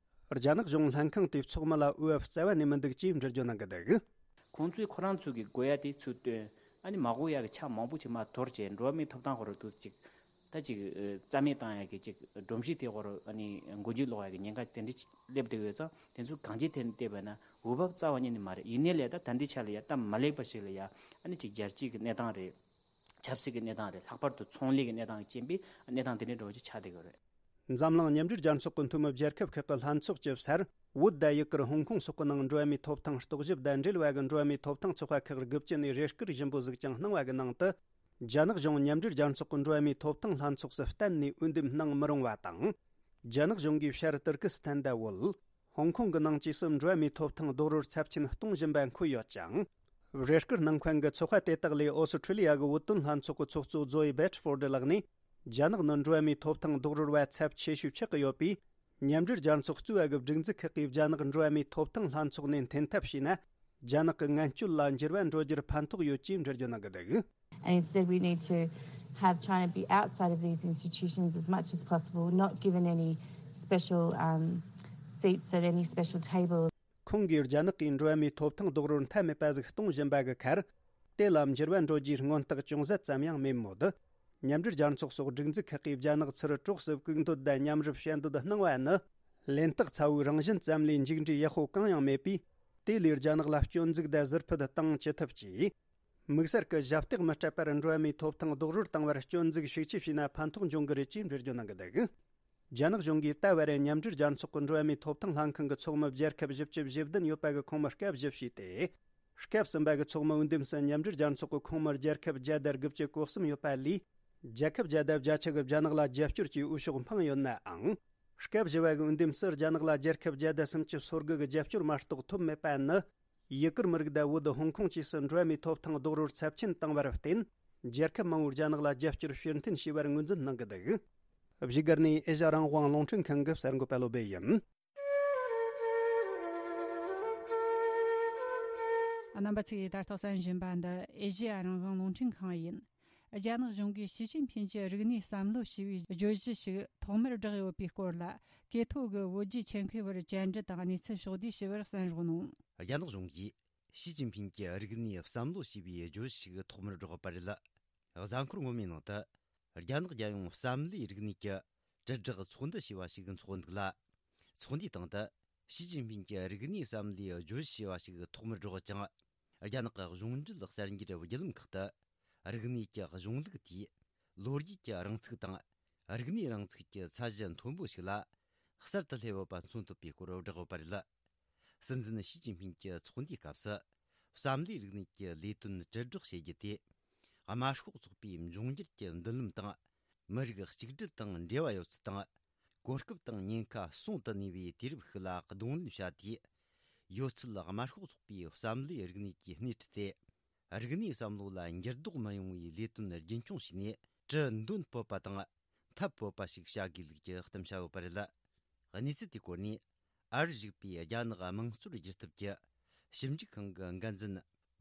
རྒྱ་ནག་གཞུང་ལྷན་ཁང་དེའི་ཚོགས་མི་ལ་འོས་བབ་རྩ་བ་ནས་མི་འདུག་ཅེས་འགྲེལ་བརྗོད་གནང་གི་འདུག་ཁོང་ཚོས་ཁོ་རང་ཚོ་གི་དགོས་ཡ་དེ་ཚུར་བཏོན། ཨ་ནི་མ་དགོས་ཡ་གི་ཆ་མང་པོ་ཅིག་མར་དོར་བྱས། འགྲོ་བ་མིའི་ཐོབ་ཐང་སྐོར་དུ་ཅིག་ད་ཅིག་རྩ་མེད་བཏང་ཡ་གི་ཅིག་སྒྲོམ་གཞི་དེ་སྐོར་ཨ་ནི་མགོ་འཇིགས་སློག་ཡ་གི་ཉེན་ཁ་དེ་འདྲ་སླེབས་བསྡད་ཡོད་ཙང་། དེ་ཚོ་གང་ཅིའི་ཐད་ནས་བལྟས་པ་ན་འོས་བབ་རྩ་བ་ཉིད་ནས་མ་རེད། ཡིན་ནའི་ལས་ད་ད་ལྟའི་ཆ་ལ་ཡ་སྟབས་མ་ལེགས་པ་ཞིག་ལ་ཡ། ཨ་ནི་ཅིག་རྒྱལ་སྤྱིའི་གི་གནས་སྟངས་རེད། ཆབ་སྲིད་ཀྱི་གནས་སྟངས་རེད། ལྷག་པར་དུ་ཚོང་ལས་ཀྱི་གནས་སྟངས་ཀྱི་རྐྱེན་པས་གནས་སྟངས་དེ་འདྲའི་འགྲོ་རྒྱུ་ཆགས་བསྡད་ཡོད་རེད། འཛམ་གླིང་མཉམ་འབྲེལ་རྒྱལ་ཚོགས་ཀྱི་འཐུས་མི་རྒྱལ་ཁབ་ཁག་གི་ལྷན་ཚོགས་ཀྱི་སར། བོད་དང་ཡུ་གུར། ཧོང་ཀོང་སོགས་ཀྱི་ནང་འགྲོ་བ་མིའི་ཐོབ་ཐང་རྟོག་ཞིབ་དང་འབྲེལ་བ་གི་འགྲོ་བ་མིའི་ཐོབ་ཐང་ཚོགས་པ་ཁག་དགུ་བཅུ་ནས་རེ་སྐུལ་ཞིབ་པོ་ཟིག་ཀྱང་གནང་བ་གི་ནང་དུ། རྒྱ་ནག་གཞུང་མཉམ་འབྲེལ་རྒྱལ་ཚོགས་ཀྱི་འགྲོ་བ་མིའི་ཐོབ་ཐང་ལྷན་ཚོགས་སུ་གཏན་ནས་འོས་འདེམས་གནང་མི་རུང་བ་དང་། རྒྱ་ནག་གཞུང་གིས་བྱར་ཏུར་ཀི་སི་ཐན་དང་བོད། ཧོང་ཀོང་གི་ནང་ཅུས་སུ་འགྲོ་བ་མིའི་ཐོབ་ཐང་རྡོག་རོལ་ཚབས་ཆེན་གཏོང་བཞིན་པ་འཁོད་ཡོད་ཅིང་། རེ་སྐུལ་གནང་མཁན་གྱི་ཚོགས་པ་དེ་དག་ལས་ཨོ་སི་ཁྲུ་ལི་ཡ་གི་བོད་དོན་ལྷན་ཚོགས་ཀྱི་ཚོགས་གཙོ་ཛོ་ཨི་བེ་ཏི་ཧྥོར་ཌི་ལགས་ནས། རྒྱ་ནག་ནི་འགྲོ་བ་མིའི་ཐོབ་ཐང་རྡོག་རོལ་བ་ཚབས་ཆེ་ཤོས་ཆགས་ཀྱི་ཡོད་པས། མཉམ་འབྲེལ་རྒྱལ་ཚོགས་གཙོས་པ་གི་སྒྲིག་འཛུགས་ཁག་གིས་རྒྱ་ནག་འགྲོ་བ་མིའི་ཐོབ་ཐང་ལྷན་ཚོགས་ནས་འཐེན་ཐབས་བྱས་ན། རྒྱ་ནག་གི་ངན་སྤྱོད་ལ་འགྱུར་བ་འགྲོ་རྒྱུར་ཕན་ཐོགས་ཡོད་ཅེས་འགྲེལ་བརྗོད་གནང་གི་འདུག And instead, we need to have China be outside of these institutions as much as possible, not given any special, um, seats at any special tables. ཁོང་གིས་རྒྱ་ནག་གིས་འགྲོ་བ་མིའི་ཐོབ་ཐང་རྡོག་རོལ་མཐའ་མེད་པ་ཟིག་གཏོང་བཞིན་པ་གི་ཁར། དེ་ལ་འགྱུར་བ་འགྲོ་རྒྱུའི་སྔོན་རྟགས་ཅུང་ཟད་ཙམ་ཡང་མེད་མོད། མཉམ་འབྲེལ་རྒྱལ་ཚོགས་སོགས་སྒྲིག་འཛུགས་ཁག་གིས་རྒྱ་ནག་ཚུར་གྲོགས་སུ་སྐུལ་འདོད་དང་མཉམ་རུབ་བྱེད་འདོད་གནང་བ་ནི། ལེན་རྟགས་ཚ་བོའི་རང་བཞིན་ཙམ་ལས་མཇུག་འབྲས་ཡག་པོ་གང་ཡང་མེད་པས། དེ་ལས་རྒྱ་ནག་ལ་སྐྱོན་འཛུགས་དང་ཟུར་ཕུད་བཏང་ཅི་ཐུབ་ཀྱིས། དམིགས་བསལ་གྱི་ཞབས་སྟེགས་མི་སྤྲད་པར་འགྲོ་བ་མིའི་ཐོབ་ཐང་རྡོག་རོལ་བཏང་བར་སྐྱོན་འཛུགས་ཤུགས་ཆེ་བྱས་ན་ཕན་ཐོགས་འབྱུང་གི་རེད་ཅེས་འགྲེལ་བརྗོད་གནང་གི་འདུག་རྒྱ་ནག་གཞུང་གིས་ད་བར་མཉམ་འབྲེལ་རྒྱལ་ཚོགས་ཀྱི་འགྲོ་བ་མིའི་ཐོབ་ཐང་ལྷན་ཁང་གི་ཚོགས་མི་རྒྱལ་ཁབ་བཞི་བཅུ་ཞེ་བདུན་ཡོད་པ་གི་ཁོངས་མི་སྐབས་བཞི་བྱས་ཏེ། སྐབས་གསུམ་པ་གི་ཚོགས་མི་འོས་འདེམས་སུ་མཉམ་འབྲེལ་རྒྱལ་ཚོགས་ཀྱི་ཁོངས་མི་རྒྱལ་ཁབ་བརྒྱ་དང་དགུ་བཅུ་གོ་གསུམ་ཡོད་པ་ལས། རྒྱལ་ཁབ་བརྒྱ་དང་བརྒྱད་ཅུ་གི་རྒྱ་ནག་ལ་རྒྱབ་སྐྱོར་གྱི་འོས་ཤོག་འཕངས་ཡོད་ནའང་། སྐབས་བཞི་བ་གི་འོས་འདེམས་སུ་རྒྱ་ནག་ལ་རྒྱལ་ཁབ་བརྒྱ་དང་སུམ་ཅུ་སོ་དགུ་གི་རྒྱབ་སྐྱོར་མ་གཏོགས་ཐོབ་མེད་པ་ནི། ཡུ་གུར་མི་རིགས་དང་བོད་ཧོང་ཀོང་བཅས་སུ་འགྲོ་བ་མིའི་ཐོབ་ཐང་རྡོག་རོལ་ཚབས་ཆེན་བཏང་བར་བརྟེན། རྒྱལ་ཁབ་མང་བོར་རྒྱ་ནག་ལ་རྒྱབ་སྐྱོར་ཕྱིར་འཐེན་བྱས་པར་ངོས་འཛིན་གནང་གི་འདུག་བཞུགས་སྒར་ནས་ཨེ་ཤ་རང་དབང་རླུང་འཕྲིན་ཁང་གི་གསར་འགོད་པ་བློ་སྦེ་ཡིན། རྣམ་པ་ཚོས་ད་ལྟ་གསན་བཞིན་པ་འདི་ཨེ་ཤེ་ཡ་རང་དབང་རླུང་འཕྲིན་ཁང་ཡིན། རྒྱ་ནག་གཞུང་གིས་ཞི་ཅིན་ཕིན་གྱི་རིག་གནས་བསམ་བློ་ཞེས་པའི་བརྗོད་གཞི་ཞིག་ཐོག་མར་བསྒྲགས་ཡོད་པའི་སྐོར་ལ། ཀེ་ཐོ་གི་བོད་བརྒྱུད་ཆེད་མཁས་པར་བཅར་འདྲི་དང་གནས་ཚུལ་ཕྱོགས་བསྡུས་ཞུ་བར་གསན་རོགས་གནང་། རྒྱ་ནག་གཞུང་གིས་ཞི་ཅིན་ཕིན་གྱི་རིག་གནས་བསམ་བློ་ཞེས་པའི་བརྗོད་གཞི་ཞིག་ཐོག་མར་བསྒྲགས་པ་རེད། གཟའ་འཁོར་སྔོན་མའི་ནང་དུ། རྒྱ་ནག་རྒྱལ་ཡོངས་བསམ་བློའི་རིག་གནས་ཀྱི་དྲིལ་བསྒྲགས་ཚོགས་འདུ་ཞེས་པ་ཞིག་འཚོགས་འདུག་ལ། ཚོགས་འདུའི་སྟེང་དུ་ཞི་ཅིན་ཕིན་གྱི་རིག་གནས་བསམ་བློའི་བརྗོད་གཞི་ཞེས་པ་ཞིག་ཐོག་མར་བསྒྲགས་ཀྱང་། རྒྱ་ནག་གི་གཞུང་འབྲེལ་གསར་འགྱུར་བརྒྱུད་ལམ་ཁག་ཏུ། རིག་གནས་ཀྱི་གཞུང་ལུགས་དེས་ལོ་རྒྱུས་ཀྱི་རིང་ཚུགས་དང་། རིག་གནས་རིང་ཚུགས་ཀྱི་ཚད་གཞི་མཐོན་པོ་ཞིག་ལ་གསར་དུ་སླེབས་ཡོད་པ་མཚོན་ཐུབ་པའི་སྐོར་བསྒྲགས་ཡོད་པ་རེད། སྲིད་འཛིན་ཞི་ཅིན་ཕིན་གྱི་ཚོགས་འདུའི་སྐབས་སུ། བསམ་བློའི་རིག་གནས་ཀྱི་ལས་དོན་དྲིལ་བསྒྲགས་བྱེད་རྒྱུ་དེ། དམར་ཤོག་ཚོགས་པའི་འབྱུང་འགྱུར་གྱི་མདུན་ལམ་དང་། མི་རིགས་གཅིག་སྒྲིལ་དང་འབྲེལ་བ་ཡོད་ཚུལ་དང་། གོ་སྐབས་དང་ཉེན་ཁ་ཟུང་དུ་གནས་པའི་དུས་རབས་ཤིག་ལ་གདོང་ལེན་བྱ་དུས། ཡོད་ཚད་དམར་ཤོག་ཚོགས་པའི་བསམ་བློའི་རིག་གནས་ཀྱི་སྣེ་ཁྲིད་དེ། རིག་གནས་བསམ་བློ་ལ་འགྱུར་ལྡོག་མི་ཡོང་བའི་ལས་དོན་རྒྱུན་འཁྱོངས་བྱས་ནས། གྲི་མདུན་སྤོབས་པ་དང་། ཐབས་སྤོབས་པ་ཞིག་བྱ་དགོས་ལུགས་ཀྱི་གཏམ་བྱ་ཡོད་པ་རེད། གནས་ཚུལ་དེའི་སྐོར་ནས། ཨ་རིར་བཞུགས་པའི་རྒྱ་ནག་དམངས་གཙོར་བསྒྱུར་ཐབས་ཀྱི་ཞིབ་འཇུག་ཁང་གི་འགན་འཛིན་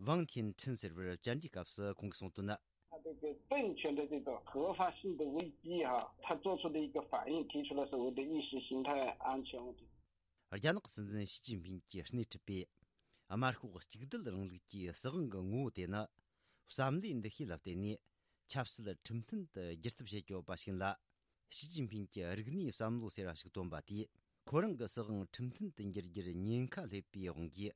ཝང་ཐིན་ཁྲིན་ཟེར་བར་བཅར་འདྲིའི་སྐབས་སུ་ཁོང་གིས་གསུངས་དོན། 他这个政权的这种合法性的危机哈，他做出的一个反应，提出了所谓的意识形态安全问题。 རྒྱ་ནག་སྲིད་འཛིན་ཞི་ཅིན་ཕིན་གྱིས་སྣེ་ཁྲིད་པའི་དམར་ཤོག་གཅིག་སྡུད་རིང་ལུགས་ཀྱི་སྲིད་དབང་གི་ངོ་བོ་དེ་ནི། བསམ་བློའི་འདུ་ཤེས་ལ་བརྟེན་ནས་ཆབ་སྲིད་ཁྲིམས་མཐུན་དུ་བསྒྱུར་ཐབས་བྱེད་ཀྱི་ཡོད་པ་ཞིག་ཡིན་ལ། ཞི་ཅིན་ཕིན་གྱིས་རིག་གནས་བསམ་བློ་ཟེར་བ་ཞིག་བཏོན་པ་དེས། ཁོ་རང་གི་སྲིད་དབང་ཁྲིམས་མཐུན་དུ་འགྱུར་རྒྱུར་ཉེན་ཁ་སླེབས་པའི་དབང་གིས།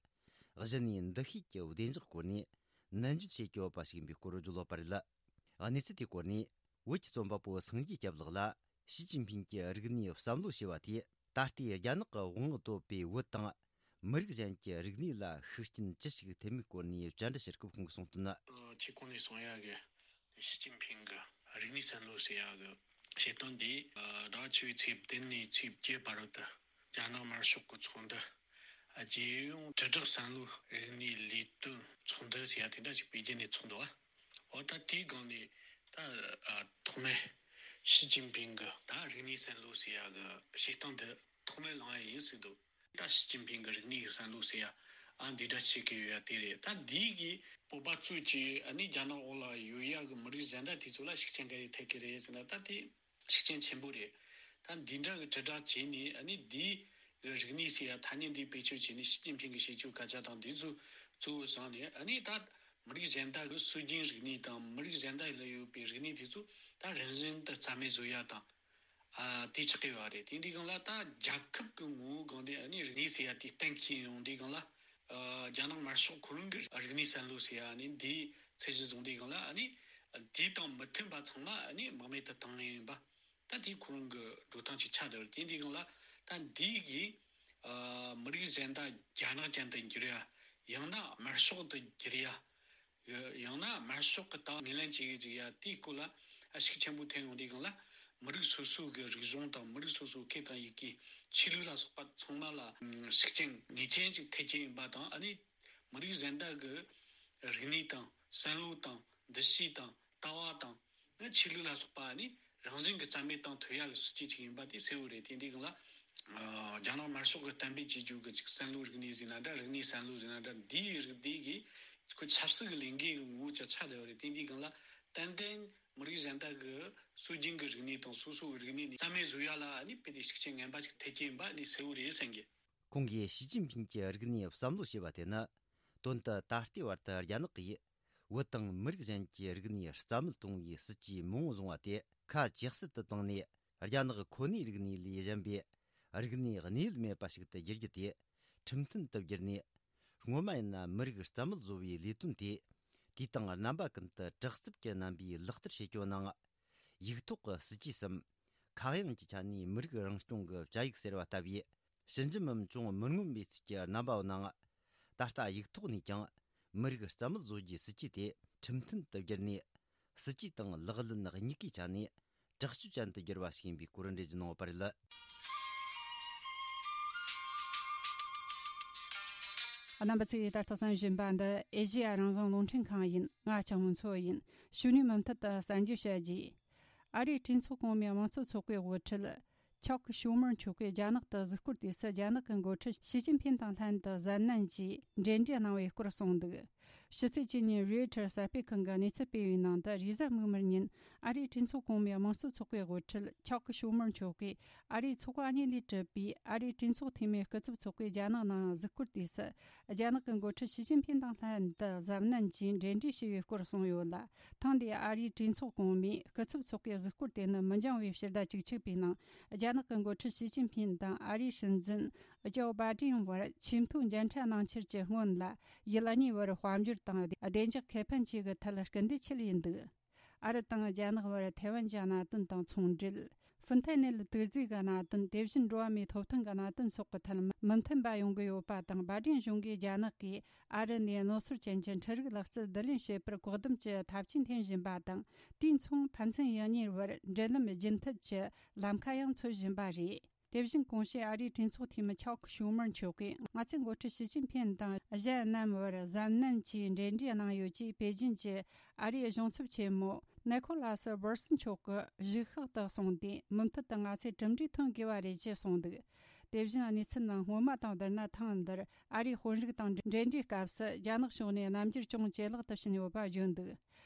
གཞི་ནས་འདུ་ཤེས་ཀྱི་བདེ་འཇགས་སྐོར་ནས་ནན་བརྗོད་བྱེད་ཀྱི་ཡོད་པ་ཞིག་ཡིན་པའི་སྐོར་བརྗོད་ཡོད་པ་རེད། གནས་ཚུལ་དེའི་སྐོར་ནས། བོད་ཀྱི་རྩོམ་པ་པོ་སངས་རྒྱས་སྐྱབས་ལགས་ལ། ཞི་ཅིན་ཕིན་གྱི་རིག་གནས་བསམ་བློ་ཞེས་པ་དེས། ད་ལྟའི་རྒྱ་ནག་གི་དབང་དུ་བསྡུས་པའི་བོད་དང་། མི་རིགས་གཞན་གྱི་རིག་གནས་ལ་ཤུགས་རྐྱེན་ཅི་ཞིག་ཐེབས་མིན་སྐོར་ནས་བཅར་འདྲི་ཞུ་སྐབས་ཁོང་གིས་གསུངས་དོན། ཨ། ཆེད་ཁོང་ནས་གསུང་ཡག་གི། ཞི་ཅིན་ཕིང་གི་རིག་གནས་བསམ་བློ་ཟེར་ཡག་གི་བཤད་སྟངས་འདི། ཨ། ཟླ་བ་བཅུ་པའི་ཚེས་བདུན་ནས་ཚེས་བརྒྱད་བར་དུ་རྒྱ་ནག་དམར་ཤོག་གི་ཚོགས་འདུ། ཨ། རྒྱལ་ཡོངས་དྲིལ་བསྒྲགས་བསམ་བློའི་རིག་གནས་ལས་དོན་ཚོགས་འདུ་ཟེར་ཡག་དེ་འདྲ་ཞིག་པེ་ཅིན་ནས་ཚོགས་འདུ་བ། འོ་ད་དེའི་སྒང་ནས་ད། ཨ། ཐོག་མའི་ཞི་ཅིན་ཕིང་གི་ད་རིག་གནས་བསམ་བློ་ཟེར་ཡག་གི་བཤད་སྟངས་འདི་ཐོག་མའི་ལངས་ཡག་ཡིན་ཟེར་འདུག་ད་ཞི་ཅིན་ཕིང་གི་རིག་གནས་ཀྱི་བསམ་བློ་ཟེར་ཡག་ཨ་འདི་འདྲ་བྱེད་ཀྱི་ཡོད་ཡག་དེ་རེད། ད་འདི་གི་བོད་པ་ཚོས་ཀྱི་ཨ་ནི་རྒྱ་ནག་འོག་ལ་ཡོད་ཡག་གི་མི་རིགས་གཞན་དག་དེ་ཚོ་ལ་ཤུགས་རྐྱེན་ག་རེ་ཐེབས་ཀྱི་རེད་ཟེར་ན། ད་དེ་ཤུགས་རྐྱེན་ཆེན་པོ་རེད། ད་འདི་འདྲ་གི་དྲིལ་བསྒྲགས་བྱས་ནས་ཨ་ནི་འདི་གི་རིག་གནས་ཟེར་ཡག་ཐ་སྙད་འདི་བེད་སྤྱོད་བྱས་ནས་ཞི་ཅིན་ཕིང་གི་བྱེད་སྤྱོད་སྐད་ཆ་དང་འདི་ཚོ་གཙོ་བོ་བཟུང་ནས། ཨ་ནི་ད་མི་རིགས་གཞན་དག་གི་སྲོལ་རྒྱུན་རིག་གནས་དང་མི་རིགས་གཞན་དག་ལ་ཡོད་པའི་རིག་གནས་དེ་ཚོ་ད་རང་བཞིན་དུ་རྩ་མེད་བཟོ་ཡག་དང་། ཨ། དེ་ཆགས་ཀྱི་ཡོད་རེད། དེ་འདི་སྒང་ལ་ད་རྒྱལ་ཁབ་ཀྱི་ངོ་བོའི་སྒང་ནས་ཨ་ནི་རིག་གནས་ཟེར་ཡག་དེ་གཏན་འཁེལ་ཡོང་དུས་སྒང་ལ། ཨ། རྒྱ་ནག་དམར་ཤོག་ཁོ་རང་གི་རིག་གནས་བསམ་བློ་ཟེར་ཡག་ཨ་ནི་འདིའི་ཚད་གཞི་བཟུང་དུས་སྒང་ལ། ཨ་ནི་དེ་དང་མི་མཐུན་པ་ཚང་མ་ཨ་ནི་རྨེག་མེད་དུ་བཏང་ཡིན་པ། ད་དེ་ཁོ་རང་གི་འགྲོ་སྟངས་ཤིག་ཆགས་བསྡད་པ་རེད། དེ་འདི་སྒང་ལ་ད་འདི་གིས། ཨ། མི་རིགས་གཞན་དག་རྒྱ་ནག་ཅན་དུ་འགྱུར་ཡག་ཡང་ན་དམར་ཤོག་ཏུ་འགྱུར་ཡག་ཡང་ན་དམར་ཤོག་གི་ད་ངོས་ལེན་བྱེད་ཀྱི་ཅིག་ཡ་དེའི་སྐོར་ལ་ཨ་ཤུགས་ཆེན་པོ་ཐེབས་ཡོང་དུས་སྒང་ལ། མི་རིགས་སོ་སོ་གི་རིག་གཞུང་དང་མི་རིགས་སོ་སོའི་སྐད་དང་ཡི་གེ། ཆོས་ལུགས་ལ་སོགས་པ་ཚང་མ་ལ་ཤུགས་རྐྱེན་ངེས་ཅན་ཅིག་ཐེབས་ཀྱི་ཡིན་པ་དང་། ཨ་ནི་མི་རིགས་གཞན་དག་གི་རིག་གནས་དང་བསམ་བློ་དང་འདུ་ཤེས་དང་ལྟ་བ་དང་། ཆོས་ལུགས་ལ་སོགས་པ་ནི་རང་བཞིན་གྱིས་རྩ་མེད་བཏང་ཐུབ་ཡག་གི་སྲིད་ཇུས་ཅིག་ཡིན་པ་དེ་གསལ་བོ་རེད། དེ་འདི་སྒང་ལ། ཨ། རྒྱ་ནག་དམར་ཤོག་གི་གཏན་འབེབས་བྱེད་རྒྱུ་གི་ཅིག་བསམ་བློའི་རིག་གནས་ཟེར་ན་འདྲ། རིག་གནས་བསམ་བློ་ཟེར་ན་འདྲ། འདིའི་རིགས་འདི་གིས་ཁོ་ཆབ་སྲིད་ཀྱི་ལས་འགན་གྱི་ངོ་བོ་ཅིག་ཆགས་བསྡད་པ་རེད། དེ་འདི་སྒང་ལ་ཏན་ཏན་མི་རིགས་གཞན་དག་གི་སྲོལ་རྒྱུན་གྱི་རིག་གནས་དང་སོ་སོ་གི་རིག་གནས་ནས་རྩ་མེད་བཟོ་ཡག་ལ་ཨ་ནི་དཔེ་དེ་ཤུགས་རྐྱེན་ངན་པ་ཅིག་ཐེབས་ཀྱི་ཡིན་པ་ནི་གསལ་བོ་རེད་བསམ་གི། ཁོང་གིས་ཞི་ཅིན་ཕིན་གྱི་རིག་གནས་བསམ་བློ་ཞེས་པ་དེ་ནི། དོན་དུ་ད་ལྟའི་བར་དུ་རྒྱ་ནག་གིས་བོད་དང་མི་རིགས་གཞན་གྱི་རིག་གནས་རྩ་མེད་གཏོང་བའི་སྲིད་ཇུས་མང་བོ་བཟུང་བ་དེ་ཁ་ཇེ་གསལ་དུ་བཏང་ནས། རྒྱ་ནག་ཁོ་ནའི་རིག་གནས་ལས་གཞན་པའི་རིག་གནས་གནས་ཡུལ་མེད་པ་ཞིག་ཏུ་བསྒྱུར་རྒྱུ་དེ་ཁྲིམས་མཐུན་དུ་བསྒྱུར་ནས། སྔོན་མ་ཡིན་ན་མི་རིགས་རྩ་མེད་བཟོ་བའི་ལས་དོན་དེ། དུས་དང་རྣམ་པ་ཀུན་ཏུ་དྲག་རྩུབ་ཀྱི་རྣམ་པས་ལག་བསྟར་བྱེད་རྒྱུ་ནང་། ཡིག་ཐོག་གི་སྲིད་ཇུས་སམ། ཁ་གཡང་གི་ཆ་ནས་མི་རིགས་རང་སྐྱོང་གི་བཅའ་ཡིག་ཟེར་བ་ལྟ་བུའི། ཕྱི་འགྱུར་མམ་ཅུང་མི་མངོན་པའི་ཚུལ་གྱི་རྣམ་པའི་ནང་། ད་ལྟ་ཡིག་ཐོག་ནས་ཀྱང་ མི་རིགས་རྩ་མེད་བཟོ་རྒྱུའི་སྲིད་ཇུས་དེ་ཁྲིམས་མཐུན་དུ་བསྒྱུར་ནས། སྲིད་ཇུས་དང་ལག་ལེན་གཉིས་ཀའི་ཆ་ནས་དྲག་སྤྱོད་ཅན་དུ་བསྒྱུར་བ་ཞིག་ཡིན་པའི་སྐོར་འགྲེལ་བརྗོད་གནང་བ་རེད། རྣམ་པ་ཚོས་ད་ལྟ་གསན་བཞིན་པ་འདི་ཨེ་ཤེ་ཡ་རང་དབང་རླུང་འཕྲིན་ཁང་ཡིན། ང་ལྕམ་མོ་མཚོ་ཡིན། གཞུག་ནས་མུ་མཐུད་དུ་གསར་འགྱུར་བཤད་རྒྱུ། ཨ་རིའི་གྲོས་ཚོགས་གོང་མའི་དམངས་གཙོ་ཚོགས་པའི་དབུ་ཁྲིད་ཆག་ཤུ་མར་མཆོག་གིས་རྒྱ་ནག་ཏུ་གཟིགས་སྐོར་དུས་སུ། རྒྱ་ནག་གི་འགོ་ཁྲིད་ཞི་ཅིན་ཕིན་དང་ལྷན་དུ་གཟབ་ནན་གྱིས་འབྲེལ་འདྲིས་གནང་བའི་སྐོར་གསུངས་འདུག། ཕྱི་ཚེས་བཅུ་ཉིན་རོའི་ཊར་གསར་སྤེལ་ཁང་གིས་གནས་ཚུལ་སྤེལ་བའི་ནང་དུ། རེས་གཟའ་མིག་དམར་ཉིན་ཨ་རིའི་གྲོས་ཚོགས་གོང་མའི་དམངས་གཙོ་ཚོགས་པའི་དབུ་ཁྲིད་ཆག་ཤུ་མར་མཆོག་གིས་ཨ་རིའི་ཚོགས་པ་གཉིས་ལས་གྲུབ་པའི་ཨ་རིའི་གྲོས་ཚོགས་འཐུས་མིའི་སྐུ་ཚབ་ཚོགས་པས་རྒྱ་ནག་ནང་གཟིགས་སྐོར་དུས་སུ། རྒྱ་ནག་གི་འགོ་ཁྲིད་ཞི་ཅིན་ཕིན་དང་ལྷན་དུ་གཟབ་ནན་གྱིས་འབྲེལ་འདྲིས་བྱས་པའི་སྐོར་གསུངས་ཡོད་ལ། ཐེངས་འདིའི་ཨ་རིའི་གྲོས་ཚོགས་གོང་མའི་སྐུ་ཚབ་ཚོགས་པའི་གཟིགས་སྐོར་དེ་ནི་མི་འགྱངས་པའི་ཕྱི་ཟླ་བཅུ་གཅིག་པའི་ནང་རྒྱ་ནག་གི་འགོ་ཁྲིད་ཞི་ཅིན་ཕིན་དང་ཨ་རིའི་སྲིད་འཛིན་ཇོ་བྷའི་ཏིན་བར་ཆེས་མཐོའི་མཇལ་འཕྲད་གནང་འཆར་གྱི་སྔོན་ལ། ཡུལ་གཉིས་བར་དཔལ་འབྱོར་དང་བདེ་འཇགས་ཁེ་ཕན་བཅས་ཀྱི་ཐད་སྐུལ་འདེད་ཆེད་ཡིན་འདུག། ཨ་རི་དང་རྒྱ་ནག་བར་ཐའེ་ཝན་གྱི་གནད་དོན་དང་ཚོང་འབྲེལ། ཧྥིན་ཐའེ་ནེལ་དུག་རྫས་ཀྱི་གནད་དོན། དེ་བཞིན་འགྲོ་བ་མིའི་ཐོབ་ཐང་གི་གནད་དོན་སོགས་ཀྱི་ཐད་མི་མཐུན་པ་ཡོང་གི་ཡོད་པ་དང་། བྷའི་ཏིན་གཞུང་གིས་རྒྱ་ནག་གིས་ཨ་རི་ནས་རྣོ་སོར་ཅན་གྱི་འཕྲུལ་རིག་ལག་རྩལ་བསྡུ་ལེན་བྱེད་པར་བཀག་སྡོམ་གྱི་ཐབས་ཇུས་འཐེན་བཞིན་པ་དང་། དུས་མཚུངས་ཕན་ཚུན་ཡུལ་གཉིས་བར་འབྲེལ་ལམ་རྒྱུན་མཐུད་ཀྱི་ལམ་ཁ་ཡང་འཚོལ་བཞིན་པ་རེད། དེ་བཞིན་གོང་ཞུས་ཨ་རིའི་གྲོས་ཚོགས་འཐུས་མི་ཆག་ཤུ་མར་མཆོག་གིས། ང་ཚོའི་འགོ་ཁྲིད་ཞི་ཅིན་ཕིན་དང་གཞན་རྣམས་བར་གཟབ་ནན་གྱིས་འབྲེལ་འདྲིས་གནང་ཡོད་ཅེས་པེ་ཅིན་གྱི་ཨ་རིའི་གཞུང་ཚབ་ཆེན་མོ་ནེ་ཁོ་ལ་སི་བྷར་སི་མཆོག་གིས་བཞུགས་ཤག་ཏུ་སོང་སྟེ། མུ་མཐུད་དུ་ང་ཚོས་གྲུབ་འབྲས་ཐོན་དགོས་པ་རེད་ཅེས་གསུངས་འདུག། དེ་བཞིན་གནས་ཚུལ་ནང་སྔོན་མ་དང་བསྡུར་ན། ཐེངས་འདིར་ཨ་རིའི་དཔོན་རིགས་དང་འབྲེལ་འདྲིས་སྐབས་སུ་རྒྱ་ནག་ཕྱོགས་ནས་རྣམ་འགྱུར་ཅུང་ཇེ་ལེགས་དུ་ཕྱིན་ཡོད་པ་བརྗོད་འདུག།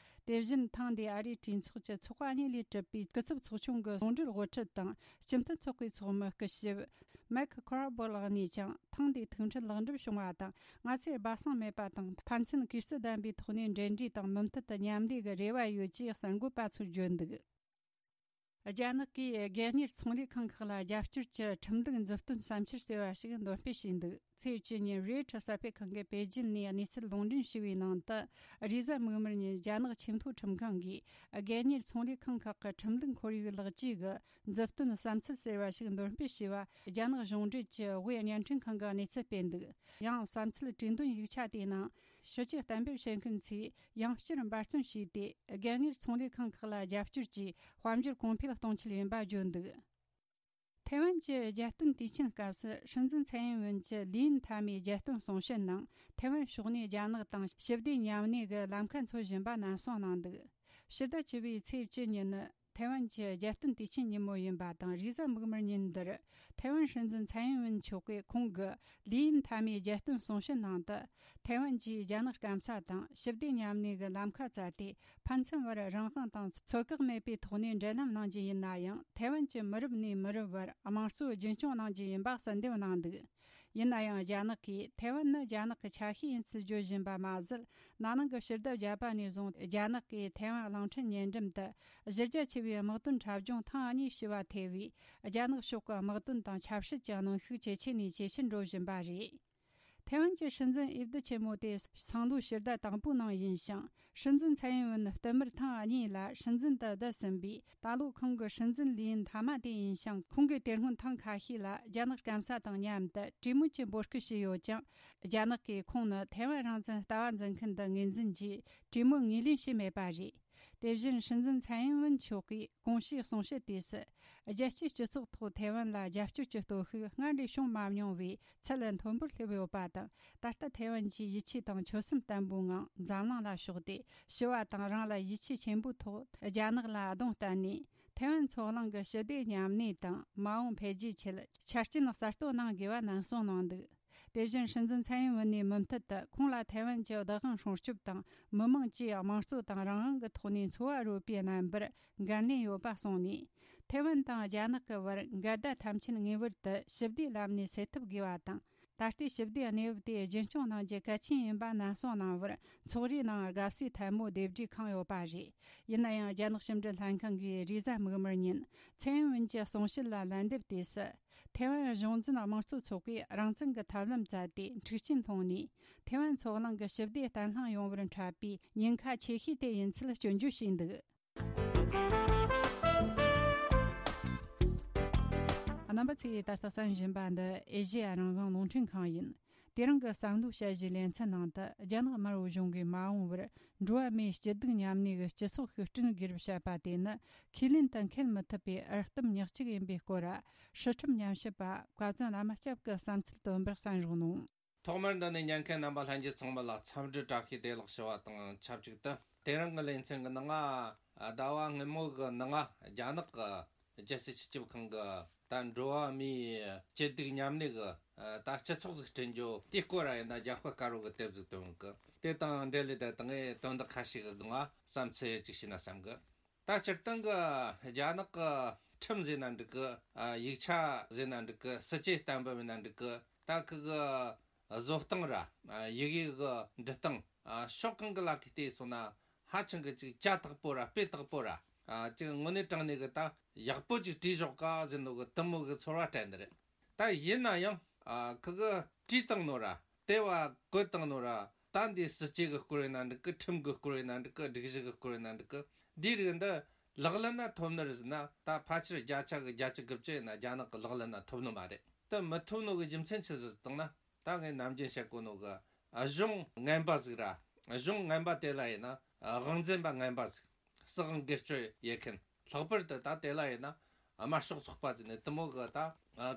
དེ་བཞིན་ཐེངས་འདིའི་ཨ་རིའི་གྲོས་ཚོགས་ཀྱི་ཚོགས་པ་གཉིས་ལས་གྲུབ་པའི་སྐུ་ཚབ་ཚོགས་ཆུང་གི་ཟུང་འབྲེལ་དབུ་ཁྲིད་དང་སྤྱི་མཐུན་ཚོགས་པའི་ཚོགས་མི་སྐུ་ཞབས་མེག་ཁོ་ར་བོ་ལགས་ནས་ཀྱང་། ཐེངས་འདིའི་ཐུག་འཕྲད་ལེགས་འགྲུབ་བྱུང་བ་དང་། ང་ཚོས་སྦ་གསང་མེད་པ་དང་ཕན་ཚུན་གུས་བརྩི་ལྡན་པའི་ཐོག་ནས་འབྲེལ་འདྲིས་དང་མུ་མཐུད་དུ་མཉམ་ལས་ཀྱི་རེ་བ་ཡོད་ཅེས་གསར་འགོད་པ་ཚོར་བརྗོད་འདུག། རྒྱ་ནག་གིས་སྒེར་གཉེར་ཚོང་ལས་ཁང་ཁག་ལ་རྒྱབ་སྐྱོར་གྱི་ཁྲིམས་ལུགས་མཛུབ་སྟོན་བསམ་འཆར་ཟེར་བ་ཞིག་འདོན་སྤེལ་བྱས་འདུག། ཚེས་བཅུ་ཉིན་རོའི་ཊར་གསར་སྤེལ་ཁང་གིས་པེ་ཅིན་ནས་གནས་ཚུལ་ལུང་འདྲེན་ཞུས་པའི་ནང་དུ། རེས་གཟའ་མིག་དམར་ཉིན་རྒྱ་ནག་ཆེས་མཐོའི་ཁྲིམས་ཁང་གིས་སྒེར་གཉེར་ཚོང་ལས་ཁང་ཁག་གི་ཁྲིམས་ལུགས་ཁོར་ཡུག་ལེགས་བཅོས་ཀྱི་མཛུབ་སྟོན་བསམ་ཚུལ་ཟེར་བ་ཞིག་འདོན་སྤེལ་བྱས་པ། རྒྱ་ནག་གཞུང་འབྲེལ་གྱི་དབུས་བརྙན་འཕྲིན་ཁང་གིས་གནས་ཚུལ་སྤེལ་འདུག། ཡང་བསམ་ཚུལ་བྲིས་འདོན་ཡིག་ཆ་དེའི་ནང་། ཕྱི་སྤྱི་གཏན་འབེབས་བྱེད་མཁན་ཚོས་ཡང་བསྐྱར་འབད་བརྩོན་བྱས་ཏེ། སྒེར་གཉེར་ཚོང་ལས་ཁང་ཁག་ལ་རྒྱབ་སྐྱོར་གྱིས་དཔལ་འབྱོར་གོང་འཕེལ་གཏོང་ཆེད་ཡིན་པ་བརྗོད་འདུག། ཐའེ་ཝན་གྱི་རྒྱལ་སྟོན་དུས་ཆེན་སྐབས་སུ། སྲིད་འཛིན་ཚའེ་ཡིན་ཝུན་གྱི་ལི་ཡིན་མཐའ་མའི་རྒྱལ་སྟོན་གསུང་བཤད་ནང་། ཐའེ་ཝན་ཕྱོགས་ནས་རྒྱ་ནག་དང་ཞི་བདེ་མཉམ་གནས་ཀྱི་ལམ་ཁ་འཚོལ་བཞིན་པ་ནན་གསུངས་གནང་འདུག། ཕྱི་ཟླ་བཅུ་པའི་ཚེས་བཅུ་ཉིན་ནི་ཐའེ་ཝན་གྱི་རྒྱལ་སྟོན་དུས་ཆེན་ཉིན་མོ་ཡིན་པ་དང་། རེས་གཟའ་མིག་དམར་ཉིན་འདིར་ཐའེ་ཝན་སྲིད་འཛིན་ཚའེ་ཡིན་ཝུན་མཆོག་གིས་ཁོང་གི་ལི་ཡིན་མཐའ་མའི་རྒྱལ་སྟོན་གསུང་བཤད་ནང་དུ། ཐའེ་ཝན་གྱིས་རྒྱ་ནག་སྐམ་ས་དང་ཞི་བདེ་མཉམ་གནས་ཀྱི་ལམ་ཁ་བཙལ་ཏེ། ཕན་ཚུན་བར་རང་དབང་དང་ཚོད་བཀག་མེད་པའི་ཐོག་ནས་འབྲེལ་ལམ་གནང་རྒྱུ་ཡིན་ན་ཡང་། ཐའེ་ཝན་གྱི་མི་རབས་ནས་མི་རབས་བར་དམངས་གཙོ་རྒྱུན་སྐྱོང་གནང་རྒྱུ་ཡིན་པ་གསལ་འདེབས་གནང་འདུག། ཡིན་ན་ཡང་རྒྱ་ནག་གིས་ཐའེ་ཝན་ནི་རྒྱ་ནག་གི་ཆ་ཤས་ཡིན་ཚུལ་བརྗོད་བཞིན་པ་མ་ཟད། ན་ནིང་གི་ཕྱི་ཟླ་བརྒྱད་པ་ནས་བཟུང་རྒྱ་ནག་གིས་ཐའེ་ཝན་གླིང་ཕྲན་ཉེ་འགྲམ་དུ་གཞི་རྒྱ་ཆེ་བའི་དམག་དོན་འཁྲབ་སྦྱོང་ཐེངས་གཉིས་བྱས་པ་ཐེ་བས། རྒྱ་ནག་ཕྱོགས་ཀྱི་དམག་དོན་དང་ཆབ་སྲིད་ཀྱི་གནོན་ཤུགས་ཇེ་ཆེ་ནས་ཇེ་ཆེར་འགྲོ་བཞིན་པ་རེད། ཐའེ་ཝན་གྱི་སྲིད་འཛིན་ཨེ་བདུ་ཆེན་མོ་དེ་སང་ལོའི་ཕྱི་ཟླ་དང་པོའི་ནང་ཡིན་ཞིང་། སྲིད་འཛིན་ཚའེ་ཡིན་ཝུན་བསྟུད་མར་ཐེངས་གཉིས་ལ་སྲིད་འཛིན་དུ་བསྡུ་ཟིན་པས། ད་ལོ་ཁོང་གི་སྲིད་འཛིན་ལས་ཡུན་མཐའ་མ་དེ་ཡིན་ཞིང་། ཁོང་གིས་དེ་སྔོན་ཐེངས་ཁ་ཤས་ལ་རྒྱ་ནག་སྐམ་ས་དང་མཉམ་དུ་གྲོས་མོལ་གྱི་འབོད་སྐུལ་བྱས་ཡོད་ཀྱང་། རྒྱ་ནག་གིས་ཁོང་ནི་ཐའེ་ཝན་རང་བཙན་ལྟ་བ་འཛིན་མཁན་དུ་ངོས་འཛིན་གྱིས། གྲོས་མོལ་ངོས་ལེན་བྱས་མེད་པ་རེད། དེ་བཞིན་སྲིད་འཛིན་ཚའེ་ཡིན་ཝུན་མཆོག་གིས་གོང་ཞུས་གསུང་བཤད་དུས་སུ། རྒྱལ་སྤྱིའི་སྤྱི་ཚོགས་ཐོག་ཐའེ་ཝན་ལ་རྒྱབ་སྐྱོར་གྱི་སྟོབས་ཤུགས་སྔར་ལས་བྱུང་མ་མྱོང་བའི་ཚད་མཐོན་པོར་སླེབས་ཡོད་པ་དང་། ད་ལྟ་ཐའེ་ཝན་གྱི་ཡིད་ཆེས་དང་ཆོད་སེམས་བརྟན་པོའི་ངང་འཛམ་གླིང་ལ་ཕྱོགས་ཏེ། ཞི་བ་དང་རང་ལ་ཡིད་ཆེས་ཆེན་པོའི་ཐོག་རྒྱ་ནག་ལ་གདོང་གཏད་ནས། ཐའེ་ཝན་མཚོ་གླིང་གི་ཞི་བདེ་མཉམ་གནས་དང་མ་འོངས་འཕེལ་རྒྱས་ཆེད་ཆ་རྐྱེན་གསར་གཏོད་གནང་དགོས་པ་ནན་གསུངས་གནང་འདུག། དེ་བཞིན་སྲིད་འཛིན་ཚའེ་ཡིན་ཝུན་ནས་མུ་མཐུད་དུ་ཁོང་ལ་ཐའེ་ཝན་གྱི་བདག་དབང་སྲུང་སྐྱོབ་དང་མི་དམངས་ཀྱིས་དམངས་གཙོ་དང་རང་དབང་གི་ཐོག་ནས་འཚོ་བ་རོལ་པའི་རྣམ་པར་འགན་ལེན་ཡོད་པ་གསུངས་ནས། ཐའེ་ཝན་དང་རྒྱ་ནག་གི་བར་འགལ་ཟླ་ཐམས་ཅད་ངེས་པར་དུ་ཞི་བདེའི་ལམ་ནས་སེལ་ཐུབ་དགོས་པ་དང་། ད་ལྟའི་ཞི་བདེའི་གནས་བབ་དེ་རྒྱུན་སྐྱོང་གནང་རྒྱུ་གལ་ཆེན་ཡིན་པ་ནན་གསུངས་གནང་བར། ཚོགས་རའི་ནང་དགའ་བསུའི་ཐལ་མོ་རྡེབ་སྒྲས་ཁེངས་ཡོད་པ་རེད། ཡིན་ན་ཡང་། རྒྱ་ནག་ཕྱི་འབྲེལ་ལྷན་ཁང་གིས་རེས་གཟའ་མིག་དམར་ཉིན་ཚའེ་ཡིན་ཝུན་གྱི་གསུང་བཤད་ལ་ལན་འདེབས་དུས་སུ། ཐའེ་ཝན་གཞུང་འཛིན་དམངས་གཙོ་ཚོགས་པས་རང་བཙན་གྱི་ཐབས་ལམ་བཙལ་ཏེ། འཁྲུག་རྐྱེན་སློང་ནས། ཐའེ་ཝན་མཚོ་གླིང་གི་ཞི་བདེ་བརྟན་ལྷིང་ཡོང་བར་འཕྲད་པའི་ཉེན་ཁ་ཆེ་ཤོས་དེ་ཡིན་ཚུལ་སྐྱོན་བརྗོད་བྱས་འདུག། རྣམ་པ་ཚོས་ད་ལྟ་གསན་བཞིན་པ་འདི་ཨེ་ཤེ་ཡ་རང་དབང་རླུང་འཕྲིན་ཁང་ཡིན། དེ་རིང་གི་བསམ་བློའི་དཔྱད་གཞིའི་ལེ་ཚན་ནང་དུ། རྒྱ་ནག་དམར་པོ་གཞུང་གིས་མ་འོངས་པར་འགྲོ་བ་མིའི་སྐྱིད་སྡུག་མཉམ་གནས་ཀྱི་སྤྱི་ཚོགས་ཤིག་བསྐྲུན་དགོས་པར་བཤད་པ་དེ་ནི། ཁས་ལེན་དུ་འཁེལ་མི་ཐུབ་པའི་འུར་གཏམ་ཉག་གཅིག་ཡིན་པའི་སྐོར། སྲིད་ཁྲིམས་ཉམས་ཞིབ་པ་བཀའ་བཙུན་བླ་མ་སྐྱབས་ཀྱིས་བསམ་ཚུལ་བཏོན་པར་གསན་རོགས་གནང་། ཐོག་མར་འདི་ནས་ཉན་མཁན་རྣམ་པ་ལྷན་རྒྱས་ཚང་མ་ལ་འཚམས་འདྲི་བཀྲ་ཤིས་བདེ་ལེགས་ཞུ་བ་དང་ཆབས་ཅིག་ཏུ། དེ་རིང་གི་ལེ་ཚན་གྱི་ནང་ང་ཟླ་བ་སྔོན་མའི་ནང་ང་རྒྱ་ནག་གི་རྒྱལ་སྲིད་སྤྱི་ཁྱབ་ཁང་གིས་ད་འགྲོ་བ་མིའི་སྐྱིད་སྡུག་མཉམ་གནས་ཀྱི་ད་སྤྱི་ཚོགས་ཤིག་བསྐྲུན་རྒྱུ་དེའི་སྐོར་ཡིན་ན། རྒྱལ་དཔོན་དཀར་པོ་གིས་དེབ་ཟིག་བཏོན་གི། དེ་དང་འབྲེལ་ལས་ད་དེ་ནས་དོན་དག་ཁ་ཤས་ཀྱི་སྒང་ང་བསམ་ཚུལ་ཅིག་བཤད་ན་བསམ་གི། ད་སྤྱིར་བཏང་གི་རྒྱ་ནག་གི་ཁྲིམས་ཟེར་ན་འགྲིག་གི། ཨ། ཡིག་ཆ་ཟེར་ན་འགྲིག་གི། སྲིད་ཇུས་གཏན་འབེབས་ཡིན་ན་འགྲིག་གི། ད་ཁོ་གི་བཟོ་སྟངས་ར། ཨ། ཡི་གེ་གི་འབྲི་སྟངས། ཨ། ཕྱོགས་གང་གི་ལ་ཁ་བལྟས་སོང་ན་ཧ་ཅང་གི་ཅིག་བྱ་དག་པོ་ར་སྤེལ་དག་པོ་ར། ཨ། ཅིག་དངོས་གནས་དྲང་གནས་གི་ད་ཡག་པོ་ཅིག་བྲིས་ཞོག་ག་ཟེར་ནོ་གི་དེ་མོ་གི་ཚོར་བ་སྤྲད་ནི་རེད། ད་ཡིན་ན་ཡང་། ཨ། ཁོ་གི་བྲིས་བཏང་ནོ་ར། དེ་བ་བཀོད་བཏང་ནོ་ར། ད་འདི་སྲིད་ཇུས་གི་སྐོར་ཡིན་ན་འགྲིག་གི། ཁྲིམས་གི་སྐོར་ཡིན་ན་འགྲིག་གི། སྒྲིག་གཞི་གི་སྐོར་ཡིན་ན་འགྲིག་གི། འདིའི་རིགས་འདི་ལག་ལེན་ན་ཐོབ་ནི་རེད་ཟེར་ན། ད་ཕལ་ཆེར་བརྒྱ་ཆ་གི་བརྒྱད་ཅུ་དགུ་བཅུ་ཡིན་ན་རྒྱ་ནག་གི་ལག་ལེན་ན་ཐོབ་ནི་མ་རེད། དེ་མི་ཐོབ་ནོ་གི་རྒྱུ་མཚན་ཆི་ཟིག་ཟེར་བཏང་ན། ད་ངས་ནམ་རྒྱུན་བཤད་གོ་ནོ་གི། ཨ། གཞུང་ངན་པ་ཟིག་ར། གཞུང་ངན་པ་དེ་ལ་ཡིན་ན། ཨ། དབང་འཛིན་པ་ངན་པ་ཟིག་སྲིད་དབང་སྒེར་གཅོད་ཡེད་མཁན། ལྷག་པར་དུ་ད་དེ་ལ་ཡིན་ན་དམར་ཤོག་ཚོགས་པ་ཟེར་ནས་དེ་མོ་གི་ད་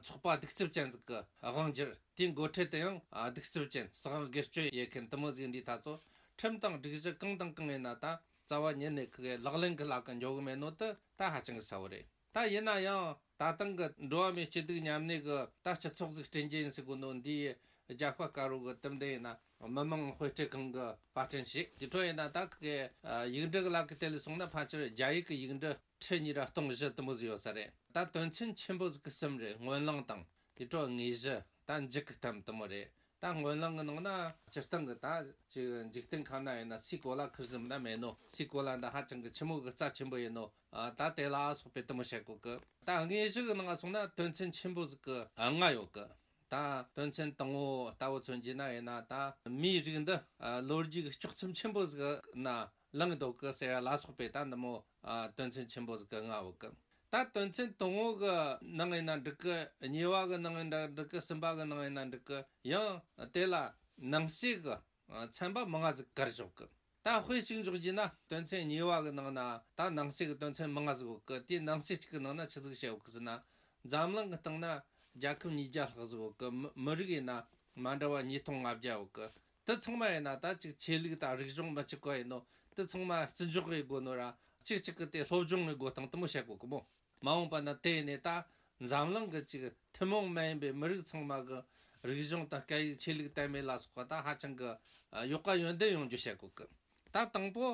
ཚོགས་པ་གདུག་རྩུབ་ཅན་ཟིག་གི་དབང་སྒྱུར། དེའི་འགོ་ཁྲིད་དེ་ཡང་གདུག་རྩུབ་ཅན། སྲིད་དབང་སྒེར་གཅོད་ཡེད་མཁན་དེ་མོ་ཟིག་འདི་ད་ཚོ་ཁྲིམས་དང་སྒྲིག་གཞི་གང་དང་གང་ཡིན་ན་ད་རྩ་བ་ཉིད་ནས་ཁོ་གི་ལག་ལེན་གི་ལ་ཁ་འཇོག་གི་མེད་ནོ་དེ་ད་ཧ་ཅང་གི་གསལ་བོ་རེད། ད་ཡིན་ན་ཡང་ད་ཐེངས་གི་འགྲོ་བ་མིའི་སྐྱིད་སྡུག་མཉམ་གནས་གི་ད་སྤྱི་ཚོགས་ཟིག་བསྐྲུན་རྒྱུ་ཡིན་ཟེར་གོ་ནོ་འདི། རྒྱལ་དཔོན་དཀར་པོ་གི་དེབ་འདི་ཡིན་ན་མི་དམངས་དཔེ་སྐྲུན་ཁང་གིས་པར་སྐྲུན་བྱས། དེ་འཕྲོ་ཡིན་ན་ད་ཁོ་གི་ཡིག་འབྲུ་གི་ལ་ཁ་བལྟས་སོང་ན། ཕལ་ཆེར་རྒྱ་ཡིག་གི་ཡིག་འབྲུ་ཁྲི་གཉིས་ར་སྟོང་བཞི་དེ་མོ་ཟིག་ཡོད་ས་རེད། ད་དོན་ཚན་ཆེན་པོ་ཟིག་གི་གསུམ་རེད། སྔོན་གླེང་དང་། དེ་འཕྲོ་དངོས་གཞི། ད་མཇུག་གི་གཏམ་དེ་མོ་རེད། ད་སྔོན་གླེང་གི་ནང་ན་སྤྱིར་བཏང་གི་ད་ཅིག་འཇིག་རྟེན་ཁམས་ན་ཡིན་ན་སའི་གོ་ལ་ཁུར་ཟིག་མ་ནས་མེད་ནོ། སའི་གོ་ལ་འདི་ཧ་ཅང་གི་ཆི་མོ་གི་རྩ་ཆེན་པོ་ཡིན་ནོ། ཨ། ད་དེ་ལ་སོགས་པའི་དེ་མོ་བཤད་གོ་གི། ད་དངོས་གཞི་གི་ནང་སོང་ན་དོན་ཚན་ཆེན་པོ་ཟིག་གི་ལྔ་ཡོད་གི། ད་དོན་ཚན་དང་པོ་ལྟ་བུ་མཚོན་རྒྱུ་ན་ཡིན་ན། ད་མིའི་རིགས་འདི་ལོ་རྒྱུས་ཀྱི་ལྕོགས་ཚད་ཆེན་པོ་ཟིག་ན་ལངས་འདུག་གི་ཟེར་ཡ་ལ་སོགས་པའི་ད་འདི་མོ། ཨ། དོན་ཚན་ཆེན་པོ་ཟིག་གི་ལྔ་ཡོད་གི། ད་དོན་ཚན་དང་པོ་གི་ནང་ཡིན་ན་འགྲིག་གི། གཉིས་པ་གི་ནང་ཡིན་ན་འགྲིག་གི། གསུམ་པ་གི་ནང་ཡིན་ན་འགྲིག་གི། ཡང་དེ་ལ་ནང་གསེས་གི། ཨ། ཚན་པ་མང་ང་ཟིག་བཀར་བཞག་གི། ད་དཔེ་གཅིག་འཇོག་རྒྱུ་ན། དོན་ཚན་གཉིས་པ་གི་ནང་ན་ད་ནང་གསེས་ཀྱི་དོན་ཚན་མང་ང་ཟིག་ཡོད་གི། དེའི་ནང་གསེས་གཅིག་གི་ནང་ན་ཆི་ཟིག་བཤད་ཡོད་གི་ཟེར་ན། འཛམ་གླིང་གི་སྟེང་ན་རྒྱལ་ཁབ་ཉིས་བརྒྱ་ལྷག་ཟིག་ཡོད་གི། མི་མི་རིགས་ཡིན་ན་མ་འདྲ་བ་ཉིས་སྟོང་ལྔ་བརྒྱ་ཡོད་གི། དེ་ཚང་མ་ཡིན་ན་ད་ཅིག་ཆོས་ལུགས་དང་རིག་གཞུང་མི་གཅིག་པ་ཡིན་ནོ། དེ་ཚང་མ་བརྩི་འཇོག་གི་དགོས་ནོ་ར། གཅིག་གཅིག་གི་དེ་སློབ་སྦྱོང་གི་དགོས་སྟངས་དེ་མོ་བཤད་གོ་གི་མོ། མ་འོངས་པ་ན་དེ་ནས་ད་འཛམ་གླིང་གི་ཅིག་ཐུན་མོང་མ་ཡིན་པའི་མི་རིགས་ཚང་མ་གི་རིག་གཞུང་དང་སྐད་ཡིག་ཆོས་ལུགས་དད་མོས་ལ་སོགས་པ་ད་ཧ་ཅང་གི་ཡོད་པ་ཡོན་ཏན་ཡོང་རྒྱུ་བཤད་གོ་གི། ད་དང་པོ་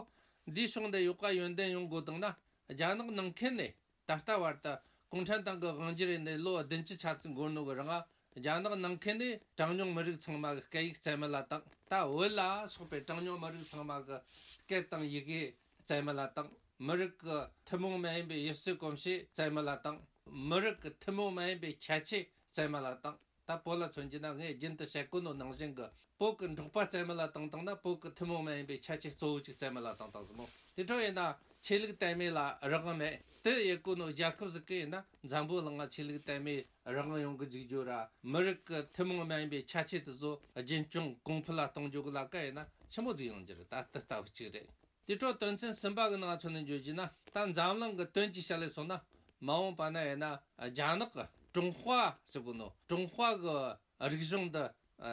འདིའི་ཕྱོགས་འདི་ཡོད་པ་ཡོན་ཏན་ཡོང་དགོས་དང་ན། རྒྱ་ནག་ནང་ཁུལ་ནས་ད་ལྟ་བར་དུ་གུང་ཁྲན་ཏང་གི་དབང་སྒྱུར་ཡིན་ནས་ལོ་བདུན་ཅུ་ཆ་ཙམ་འགོར་ནོ་གི་རིང་ང་། རྒྱ་ནག་ནང་ཁུལ་ནས་གྲངས་ཉུང་མི་རིགས་ཚང་མ་གི་སྐད་ཡིག་རྩ་མེད་ལ་བཏང་། ད་བོད་ལ་སོགས་པའི་གྲངས་ཉུང་མི་རིགས་ཚང་མ་གི་སྐད་དང་ཡི་གེ་རྩ་མེད་ལ་བཏང་། མི་རིགས་ཀྱི་ཐུན་མོང་མ་ཡིན་པའི་ཡུལ་སྲོལ་གོམས་གཤིས་རྩ་མེད་ལ་བཏང་། མི་རིགས་ཀྱི་ཐུན་མོང་མ་ཡིན་པའི་ཁྱད་ཆོས་རྩ་མེད་ལ་བཏང་། ད་བོད་ལ་མཚོན་རྒྱུ་ན། ངས་རྒྱུན་དུ་བཤད་གོ་ནོ་ནང་བཞིན་གྱི། བོད་ཀྱི་འབྲོག་པ་རྩ་མེད་ལ་བཏང་བཏང་ན། བོད་ཀྱི་ཐུན་མོང་མ་ཡིན་པའི་ཁྱད་ཆོས་གཙོ་བོ་གཅིག་རྩ་མེད་ལ་བཏང་བཏང་ཟིག་མོ། དེ་འཕྲོ་ཡིན་ན་ཆོས་ལུགས་དད་མོས་ལ་རང་དབང་མེད། དེ་ཡེད་གོ་ནོ་རྒྱལ་ཁབ་ཟིག་གི་ཡིན་ན། འཛམ་བུ་གླིང་ང་ཆོས་ལུགས་དད་མོས་རང་དབང་ཡོང་གི་འཇུག་རྒྱུ་ར། མི་རིགས་ཀྱི་ཐུན་མོང་མ་ཡིན་པའི་ཁྱད་ཆོས་དེ་ཚོ་རྒྱུན་སྐྱོང་གོང་འཕེལ་ལ་གཏོང་རྒྱུ་གི་ལ་ཀ་ཡིན་ན་ཆི་མོ་ཟིག་ཡོང་རྒྱུ་རེད། ད་དེ་ལྟ་བུ་གཅིག་རེད། དེ་འཕྲོ་དོན་ཚན་གསུམ་པ་གི་ནང་མཚོན་ནས་བརྗོད་རྒྱུ་ན། ད་འཛམ་གླིང་གི་དོན་གྱི་བཤད་ལས་སོང་ན། མ་འོངས་པ་ན་ཡིན་ན་རྒྱ་ནག་གི་ཀྲུང་ཧྭ་ཟེར་གོ་ནོ། ཀྲུང་ཧྭ་གི་རིག་གཞུང་འདི་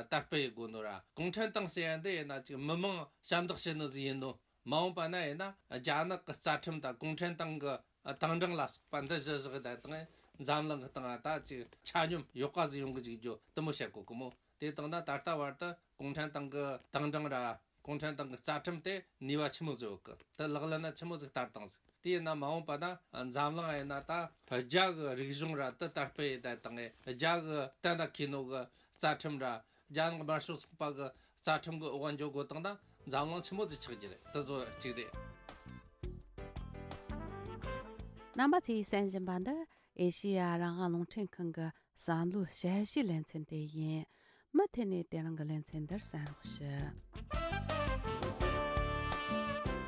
དར་སྤེལ་ཡེད་དགོས་ནོ་ར། གུང་ཁྲན་ཏང་ཟེར་ཡ་འདི་ཡིན་ན་ཅིག་མི་མང་ཞབས་འདེགས་བྱེད་ནོ་ཟིག་ཡིན་ནོ། མ་འོངས་པ་ན་ཡིན་ན་རྒྱ་ནག་གི་རྩ་ཁྲིམས་དང་གུང་ཁྲན་ཏང་གི་ཨ། དང་གྲངས་ལ་སོགས་པ་འདི་གཞི་བཞག་ཡེད་བཏང་། འཛམ་གླིང་གི་སྟེང་ང་ད་ཅིག་ཆ་སྙོམས་ཡོད་པ་ཟིག་ཡོང་གི་འཇུག་རྒྱུ་དེ་མོ་བཤད་གོ་གི་མོ། དེ་བཏང་ན་ད་ལྟ་བར་དུ་གུང་ཁྲན་ཏང་གི་དང་གྲངས་ར། གུང་ཁྲན་ཏང་གི་རྩ་ཁྲིམས་དེ་ནུས་པ་ཆི་མོ་ཟིག་ཡོད་གི། དེ་ལག་ལེན་ན་ཆི་མོ་ཟིག་བསྟར་བཏང་ཟིག། དེ་ཡིན་ན་མ་འོངས་པ་ན་འཛམ་གླིང་ཡིན་ན་ད་རྒྱ་གི་རིག་གཞུང་ར་དེ་དར་སྤེལ་ཡེད་བཏང་། རྒྱ་གི་གཏན་ལ་འཁེལ་ནོ་གི་རྩ་ཁྲིམས་ར། རྒྱ་ནག་དམར་ཤོག་ཚོགས་པ་གི་རྩ་ཁྲིམས་གི་འོག་འཇོག་དགོས་བཏང་ན། འཛམ་གླིང་ཆི་མོ་ཟིག་ཆགས་རྒྱུ་རེད། དེ་ཚོ་གཅིག་རེད། རྣམ་པ་ཚོས་གསན་བཞིན་པ་འདི་ཨེ་ཤེ་ཡ་རང་དབང་རླུང་འཕྲིན་ཁང་གི་བསམ་བློའི་དཔྱད་གཞིའི་ལེ་ཚན་དེ་ཡིན། མུ་མཐུད་ནས་དེ་རིང་གི་ལེ་ཚན་འདིར་གསན་རོགས་ཞུ།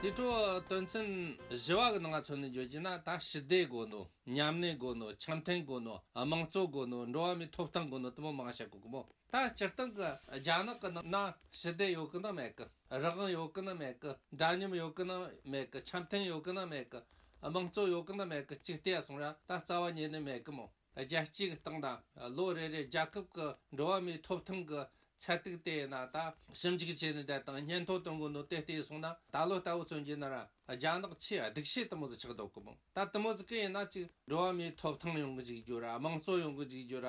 དེ་འཕྲོ་དོན་ཚན་བཞི་བ་གི་ནང་ང་མཚོན་ནས་བརྗོད་རྒྱུ་ན། ད་ཞི་བདེ་དགོས་ནོ། མཉམ་གནས་དགོས་ནོ། འཆམ་མཐུན་དགོས་ནོ། དམངས་གཙོ་དགོས་ནོ། འགྲོ་བ་མིའི་ཐོབ་ཐང་དགོས་ནོ། དེ་མོ་མང་ང་བཤད་གོ་གི་མོ། ད་སྤྱིར་བཏང་གི་རྒྱ་ནག་གི་ནང་ན་ཞི་བདེ་ཡོད་གི་ན་མེད་གི། རང་དབང་ཡོད་གི་ན་མེད་གི། འདྲ་མཉམ་ཡོད་གི་ན་མེད་གི། འཆམ་མཐུན་ཡོད་གི་ན་མེད་གི། དམངས་གཙོ་ཡོད་གི་ན་མེད་གི། ཅིག་བལྟས་སོང་ར། ད་རྩ་བ་ཉིད་ནས་མེད་གི་མོ། རྒྱལ་སྤྱིའི་སྟེང་དང་ལོ་རེ་རེ་རྒྱལ་ཁབ་ཀྱི་འགྲོ་བ་མིའི་ཐོབ་ཐང་གི་ཚད་ཐིག་དེ་ཡིན་ན། ད་ཞིབ་འཇུག་བྱས་ནས་བསྡད་དང་སྙན་ཐོ་བཏོན་དགོས་ནོ་དེ་བལྟས་སོང་ན། ད་ལོ་ལྟ་བུ་མཚོན་རྒྱུ་ན་ར། རྒྱ་ནག་ཆེས་སྡུག་ཤོས་དེ་མོ་ཟིག་ཆགས་འདུག་གི་མོ། ད་དེ་མོ་ཟིག་གི་ཡིན་ན་ཅིག་འགྲོ་བ་མིའི་ཐོབ་ཐང་ཡོང་གི་འཇུག་རྒྱུ་ར། དམངས་གཙོ་ཡོང་གི་འཇུག་རྒྱུ་ར།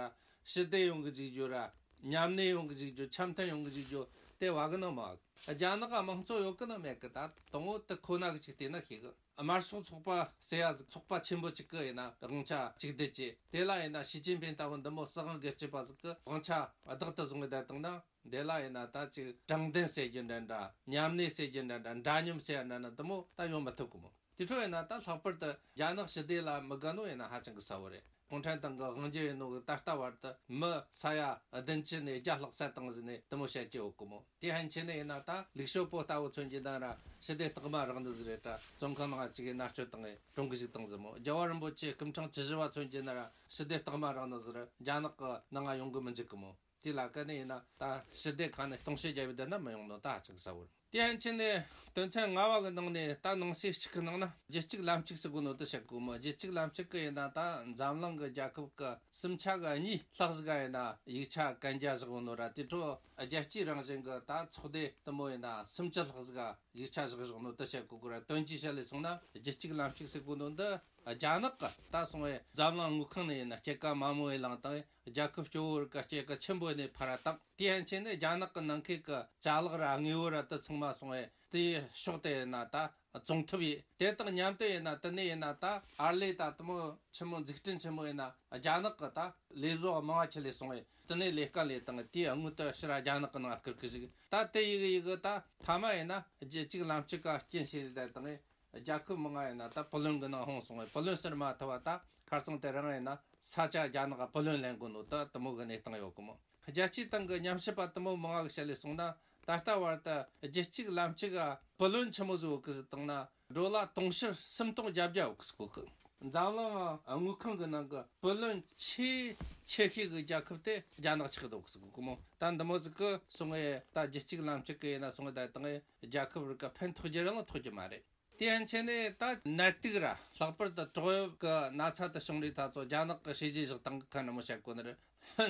ཞི་བདེ་ཡོང་གི་འཇུག་རྒྱུ་ར། མཉམ་གནས་ཡོང་གི་འཇུག་རྒྱུ། འཆམ་མཐུན་ཡོང་གི་འཇུག་རྒྱུ་དེ་བ་གི་ན་མ། རྒྱ་ནག་དམངས་གཙོ་ཡོད་གི་ན་མེད་གི། ད་དང་པོ་དེ་ཁོ་ན་གི་ཅིག་བལྟས་ན་ཤེས་གི། དམར་ཤོག་ཚོགས་པ་ཟེར་ཡ་ཟིག་ཚོགས་པ་ཆེན་པོ་གཅིག་གི་ཡིན་ན་དབང་ཆ་གཅིག་སྡུད་བྱས། དེ་ལ་ཡིན་ན་ཞི་ཅིན་ཕིང་ལྟ་བུ་འདི་མོ་སྲིད་དབང་སྒེར་གཅོད་པ་ཟིག་གི་དབང་ཆ་བདག་ཏུ་བཟུང་གི་བསྡད་བཏང་ན། འདི་ལ་ཡིན་ན་ད་ཅིག་དྲང་བདེན་ཟེར་རྒྱུ་འདྲ་འདྲ། མཉམ་གནས་ཟེར་རྒྱུ་འདྲ་འདྲ། འདྲ་མཉམ་ཟེར་ཡ་འདྲ་འདྲ་འདི་མོ་ད་ཡོང་མི་ཐུབ་གི་མོ། དེ་འཕྲོ་ཡིན་ན་ད་ལྷག་པར་དུ་རྒྱ་ནག་ཞི་བདེ་ལ་མི་དགའ་ནོ་ཡིན་ན་ཧ་ཅང་གི་གསལ་བོ་རེད། གུང་ཁྲན་ཏང་གི་དབང་སྒྱུར་ཡིན་ནོ་གི་ད་ལྟ་བར་དུ་མི་ས་ཡ་བདུན་ཅུ་ནས་བརྒྱ་ལྷག་ས་བཏང་ཟིན་ནས་དེ་མོ་བཤད་ཀྱི་ཡོད་གི་མོ། དེ་ཕན་ཆད་ནས་ཡིན་ན་ད་ལིག་ཞོ་པོ་ལྟ་བུ་མཚོན་གྱི་ན་ར། ཞི་བདེ་རྟགས་མ་རག་ནི་ཟིག་རེད་ད། བཙོན་ཁང་ནང་ཅིག་གི་མནར་གཅོད་བཏང་ངས་གྲོངས་གི་ཞིག་བཏང་ཟིན་མོ། རྒྱལ་བ་རིན་པོ་ཆེ་སྐུ་ཕྲེང་བཅུ་བཞི་བ་མཚོན་གྱི་ན་ར། ཞི་བདེ་རྟགས་མ་རག་ནི་ཟིག་ར་རྒྱ་ནག་གི་ནང་ང་ཡོང་གི་མི་འཇུག་གི་མོ། དེ་ལ་ཀ་ནས་ཡིན་ན་ད་ཞི་བདེ་ཁ་ནས་སྟོང་བཤད་རྒྱབ་བསྡད་ན་མི་ཡོང་ནོ་ད་ཧ་ཅང་གསལ་བོ་རེད། དེ་ཡན་ཆད་ནས་དོན་ཚན་ལྔ་བ་གི་ནང་ནས། ད་ནང་གསེས་གཅིག་གི་ནང་ན་རྒྱུད་གཅིག་ལམ་གཅིག་ཟེར་གོ་ནོ་དེ་བཤད་གོ་མོ། རྒྱུད་གཅིག་ལམ་གཅིག་གི་ཡིན་ན་ད་འཛམ་གླིང་གི་རྒྱལ་ཁབ་གི་སུམ་ཆ་གི་གཉིས་ལྷག་ཟིག་ག་ཡིན་ན་ཡིག་ཆ་གན་རྒྱ་བཞག་ནོ་ར། དེ་འཕྲོ་རྒྱལ་སྤྱིའི་རང་བཞིན་གི་ད་ཚོགས་སྡེ་དེ་མོ་ཡིན་ན་སུམ་ཅུ་ལྷག་ཟིག་ག་ཡིག་ཆ་བཞག་བཞག་ནོ་དེ་བཤད་གོ་གི་ར། དོན་གྱིས་བཤད་ལས་སོང་ན་རྒྱུད་གཅིག་ལམ་གཅིག་ཟེར་གོ་ནོ་འདི་རྒྱ་ནག་གི་ད་སོང་བའི་འཛམ་གླིང་དངུལ་ཁང་ནས་ཡིན་ན་སྐྱེད་ཀ་དམའ་མོ་ཡི་བླངས་དང་། རྒྱལ་ཁབ་སྐྱོ་བོ་རིགས་ཀ་སྐྱེད་ཀ་ཆེན་པོ་ནས་ཕར་ར་བཏང་། དེ་ཡན་ཆད་ནས་རྒྱ་ནག་གི་ནང་ཁུལ་གི་ཅ་ལག་ར་དངོས་པོ་ར་དེ་ཚང་མ་སོང་བས་དེའི་ཕྱོགས་དེ་ཡིན་ན་ད་བཙོང་ཐུབ་ཡིན། དེ་དང་མཉམ་དུ་ཡིན་ན་དེ་ནས་ཡིན་ན་ད་ཨར་ལས་ད་དེ་མོ་ཆེན་མོ་འཛུགས་སྐྲུན་ཆེན་མོ་ཡིན་ན་རྒྱ་ནག་གི་ད་ལས་བཟོ་བ་མང་བ་ཁྲིད་ལས་སོང་བས་དེ་ནས་ལས་ཀ་ལས་དང་དེའི་དངུལ་དེ་ཕྱིར་ར་རྒྱ་ནག་གི་ནང་བསྐུར་གི་ཞིག། ད་དེ་ཡི་གི་ཡི་གི་ད་མཐའ་མ་ཡིན་ན་རྒྱུད་གཅིག་ལམ་གཅིག་ག་རྐྱེན་བྱས་ལས་དང་། རྒྱལ་ཁབ་མང་ང་ཡིན་ན་ད་བུ་ལོན་གི་ནང་ལྷུང་སོང་བས་བུ་ལོན་ཟེར་མ་ཐུབ་བ། ད་ཁ་རྩང་དེ་རིང་ཡིན་ན་ས་ཆ་རྒྱ་ནག་ག་བུ་ལོན་ལེན་དགོས་ནོ་ད་དེ་མོ་གི་གནས་སྟངས་ཡོད་གི་མོ། རྒྱལ་སྤྱིའི་སྟེང་གི་ཉམས་ཞིབ་པ་དེ་མོ་མང་ང་གི་བཤད་ལས་སོང་ན། ད་ལྟ་བར་དུ་རྒྱུད་གཅིག་ལམ་གཅིག་ག་བུ་ལོན་ཆི་མོ་ཟིག་ཡོད་གི་ཟིག་བཏང་ན་ཌོ་ལར་དུང་ཕྱུར་སུམ་སྟོང་བརྒྱད་བརྒྱ་ཡོད་གི་ཟིག་གོ་གི། འཛམ་གླིང་དངུལ་ཁང་གི་ནང་གི་བུ་ལོན་ཆེས་ཆེ་ཤོས་གི་རྒྱལ་ཁབ་དེ་རྒྱ་ནག་ཆགས་འདུག་གི་ཟིག་གོ་གི་མོ། ད་འདི་མོ་ཟིག་གི་སོང་ངས་ད་རྒྱུད་གཅིག་ལམ་གཅིག་གི་ཡིན་ན་སོང་ངས་ད་དང་རྒྱལ་ཁབ་རིགས་ཀ་ཕན་ཐོགས་རྒྱུ་རང་ཐོགས་རྒྱུ་མ་རེད། དེ་ཡན་ཆད་ནས་ད་ནད་དུག་ར་ལྷག་པར་དུ་གྲོག་གཡོབ་ཀྱི་ན་ཚ་དེ་བྱུང་རེས་ད་ཚོ་རྒྱ་ནག་གི་བྱས་རྗེས་བཞག་སྟངས་གི་ཁ་ན་མོ་བཤད་དགོས་ནི་རེད།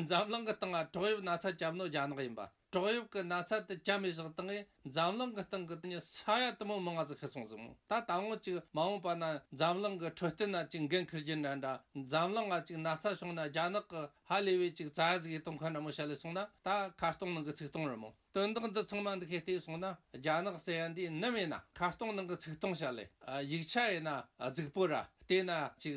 འཛམ་གླིང་གི་སྟེང་ང་གྲོག་གཡོབ་ན་ཚ་བརྒྱབ་ནོ་རྒྱ་ནག་ཡིན་པ། གྲོག་གཡོབ་ཀྱི་ན་ཚ་དེ་བརྒྱབ་མེད་བཞག་སྟངས་ངས་འཛམ་གླིང་གི་སྟེང་གི་དེ་ཉིད་ས་ཡ་དེ་མོ་མང་ང་ཟིག་ཤི་སོང་ཟིག་མོ། ད་ད་ངོ་ཅིག་མ་འོངས་པ་ན་འཛམ་གླིང་གི་འཕྲོད་བསྟེན་ན་ཅིག་འགན་འཁུར་རྒྱུ་འདྲ་འདྲ། འཛམ་གླིང་ང་ཅིག་ན་ཚ་བྱུང་ན་རྒྱ་ནག་གི་ཧ་ལས་པའི་ཅིག་རྩ་ཟིག་ཡེ་གཏོང་ཁ་འདྲ་མོ་བྱ་ལས་སོང་ན། ད་ཁ་སྟོང་ནང་གི་ཚིག་སྟོང་རེད་མོ། དོན་དག་འདི་ཚང་མ་འདི་ཁའི་བལྟས་སོང་ན་རྒྱ་ནག་ཟེར་ཡ་འདི་ནམ་ཡིན་ན་ཁ་སྟོང་ནང་གི་ཚིག་སྟོང་བྱ་ལས། ཡིག་ཆ་ཡིན་ན་རྫིག་པོ་ར། བལྟས་ན་ཅིག་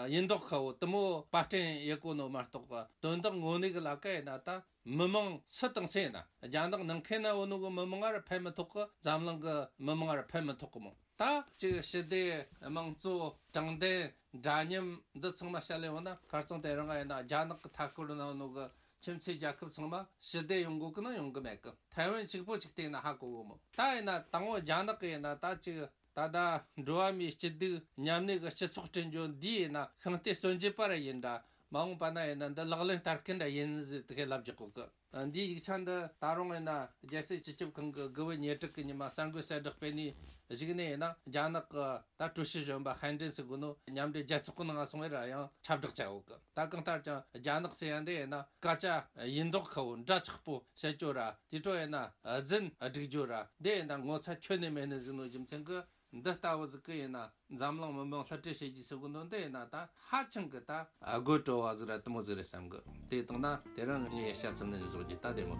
ཡིན་མདོག་ཁ་བོ་དེ་མོ་པར་སྐྲུན་ཡེ་གོ་ནོ་མ་གཏོགས་དོན་དག་དངོས་གནས་གི་ལ་ཀ་ཡིན་ན་ད་མི་མང་སུ་དང་སུ་ཡིན་ན་རྒྱ་ནག་ནང་ཁུལ་ན་ཡོད་ནོ་གི་མི་མང་ང་ར་ཕན་མི་ཐོགས་གི། འཛམ་གླིང་གི་མི་མང་ང་ར་ཕན་མི་ཐོགས་གི་མོ། ད་ཅིག་ཞི་བདེ་དམངས་གཙོ་དྲང་བདེན་འདྲ་མཉམ་འདི་ཚང་མ་བཤད་ལས་འོ་ན། ཁ་རྩང་དེ་རིང་ཡིན་ན་རྒྱ་ནག་གི་མཐའ་སྐོར་ན་ཡོད་ནོ་གི་ཁྱིམ་མཚེས་རྒྱལ་ཁབ་ཚང་མ་ཞི་བདེ་ཡོང་གོ་གི་ན་ཡོང་གི་མེད་གི། ཐའེ་ཝན་གཅིག་པོ་གཅིག་བལྟས་ན་ཧ་གོ་གོ་མོ། ད་ཡིན་ན་དང་པོ་རྒྱ་ནག་གི་ཡིན་ན་ད་ཅིག་ད་ལྟ་འགྲོ་བ་མིའི་སྐྱིད་སྡུག་མཉམ་གནས་ཀྱི་སྤྱི་ཚོགས་བསྐྲུན་རྒྱུ་འདི་ཡིན་ན་ཤིང་རྟའི་སྲོལ་འབྱེད་པ་ར་ཡིན་འདྲ། མ་འོངས་པ་ན་ཡིན་ན་འདི་ལག་ལེན་བསྟར་མཁན་འདྲ་ཡིན་ཟིག་དེ་ཁས་ལབ་རྒྱག་གོ་གི། འདིའི་ཡིག་ཆ་འདི་ད་རུང་ཡིན་ན་རྒྱལ་སྲིད་སྤྱི་ཁྱབ་ཁང་གི་དགུ་པའི་ཉེར་དྲུག་གི་ཉི་མ་གསར་འགོད་གསལ་བསྒྲགས་སྤེལ་ནས་གཞུག་ནས་ཡིན་ན་རྒྱ་ནག་གི་ད་ཀྲུའུ་ཞི་གཞོན་པ་ཧན་ཀྲིན་ཟེར་གོ་ནོ་མཉམ་འབྲེལ་རྒྱལ་ཚོགས་ཀྱི་ནང་སོང་བས་ར་ཡང་ཁྱབ་བསྒྲགས་བྱ་འོ་གི། ད་གང་ལྟར་ཀྱང་རྒྱ་ནག་ཟེར་ཡ་འདི་ཡིན་ན་སྐད་ཆ་ཡིན་མདོག་ཁ་བོ་འདྲ་ཆགས་པོ་བཤད་རྒྱུ་ར། དེ་འཕྲོ་ཡིན་ན་རྫུན་སྒྲིག་རྒྱུ་ར། འདི་ཡིན་ན་ངོ་ཚ་ཁྱོན་ནས་མེད་ནི་ཟིག་ནོ་རྒྱུ་མཚན་གི། འདི་ལྟ་བུ་ཟིག་གི་ཡིན་ན་འཛམ་གླིང་མི་མང་བསླུ་བྲིད་བྱེད་རྒྱུ་ཟེར་གོ་ནོ་འདི་ཡིན་ན་ད་ཧ་ཅང་གི་ད་དགོད་བྲོ་བ་ཟིག་ར་དེ་མོ་ཟིག་རེད་བསམ་གི། དེ་བཏང་ན་དེ་རིང་ངས་ཡ་ཤ་ཚིམ་ནས་བཟོ་རྒྱུ་ད་དེ་མོ།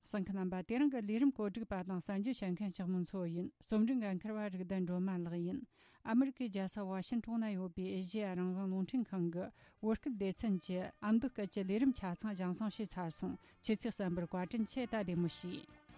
གསན་མཁན་རྣམ་པ། དེ་རིང་གི་ལས་རིམ་གོ་སྒྲིག་པ་དང་གསན་རྒྱུ་བྱེད་མཁན་ལྕགས་མོ་མཚོ་ཡིན། རྩོམ་སྒྲིག་འགན་འཁུར་བ་རིག་ལྡན་སྒྲོལ་མ་ལགས་ཡིན། ཨ་མི་རི་ཀའི་རྒྱལ་ས་ཝ་ཤིན་ཀྲོང་ན་ཡོད་པའི་ཨེ་ཤེ་ཡ་རང་དབང་རླུང་འཕྲིན་ཁང་གི་བོད་སྐད་སྡེ་ཚན་གྱི་ཨ་མདོ་སྐད་ཀྱི་ལས་རིམ་ཆ་ཚང་རྒྱང་སྲིང་བྱས་ཚར་སོང་། ཁྱེད་ཚོས་གསན་པར་བཀའ་དྲིན་ཆེ། ད་བདེ་མོ་བྱོས།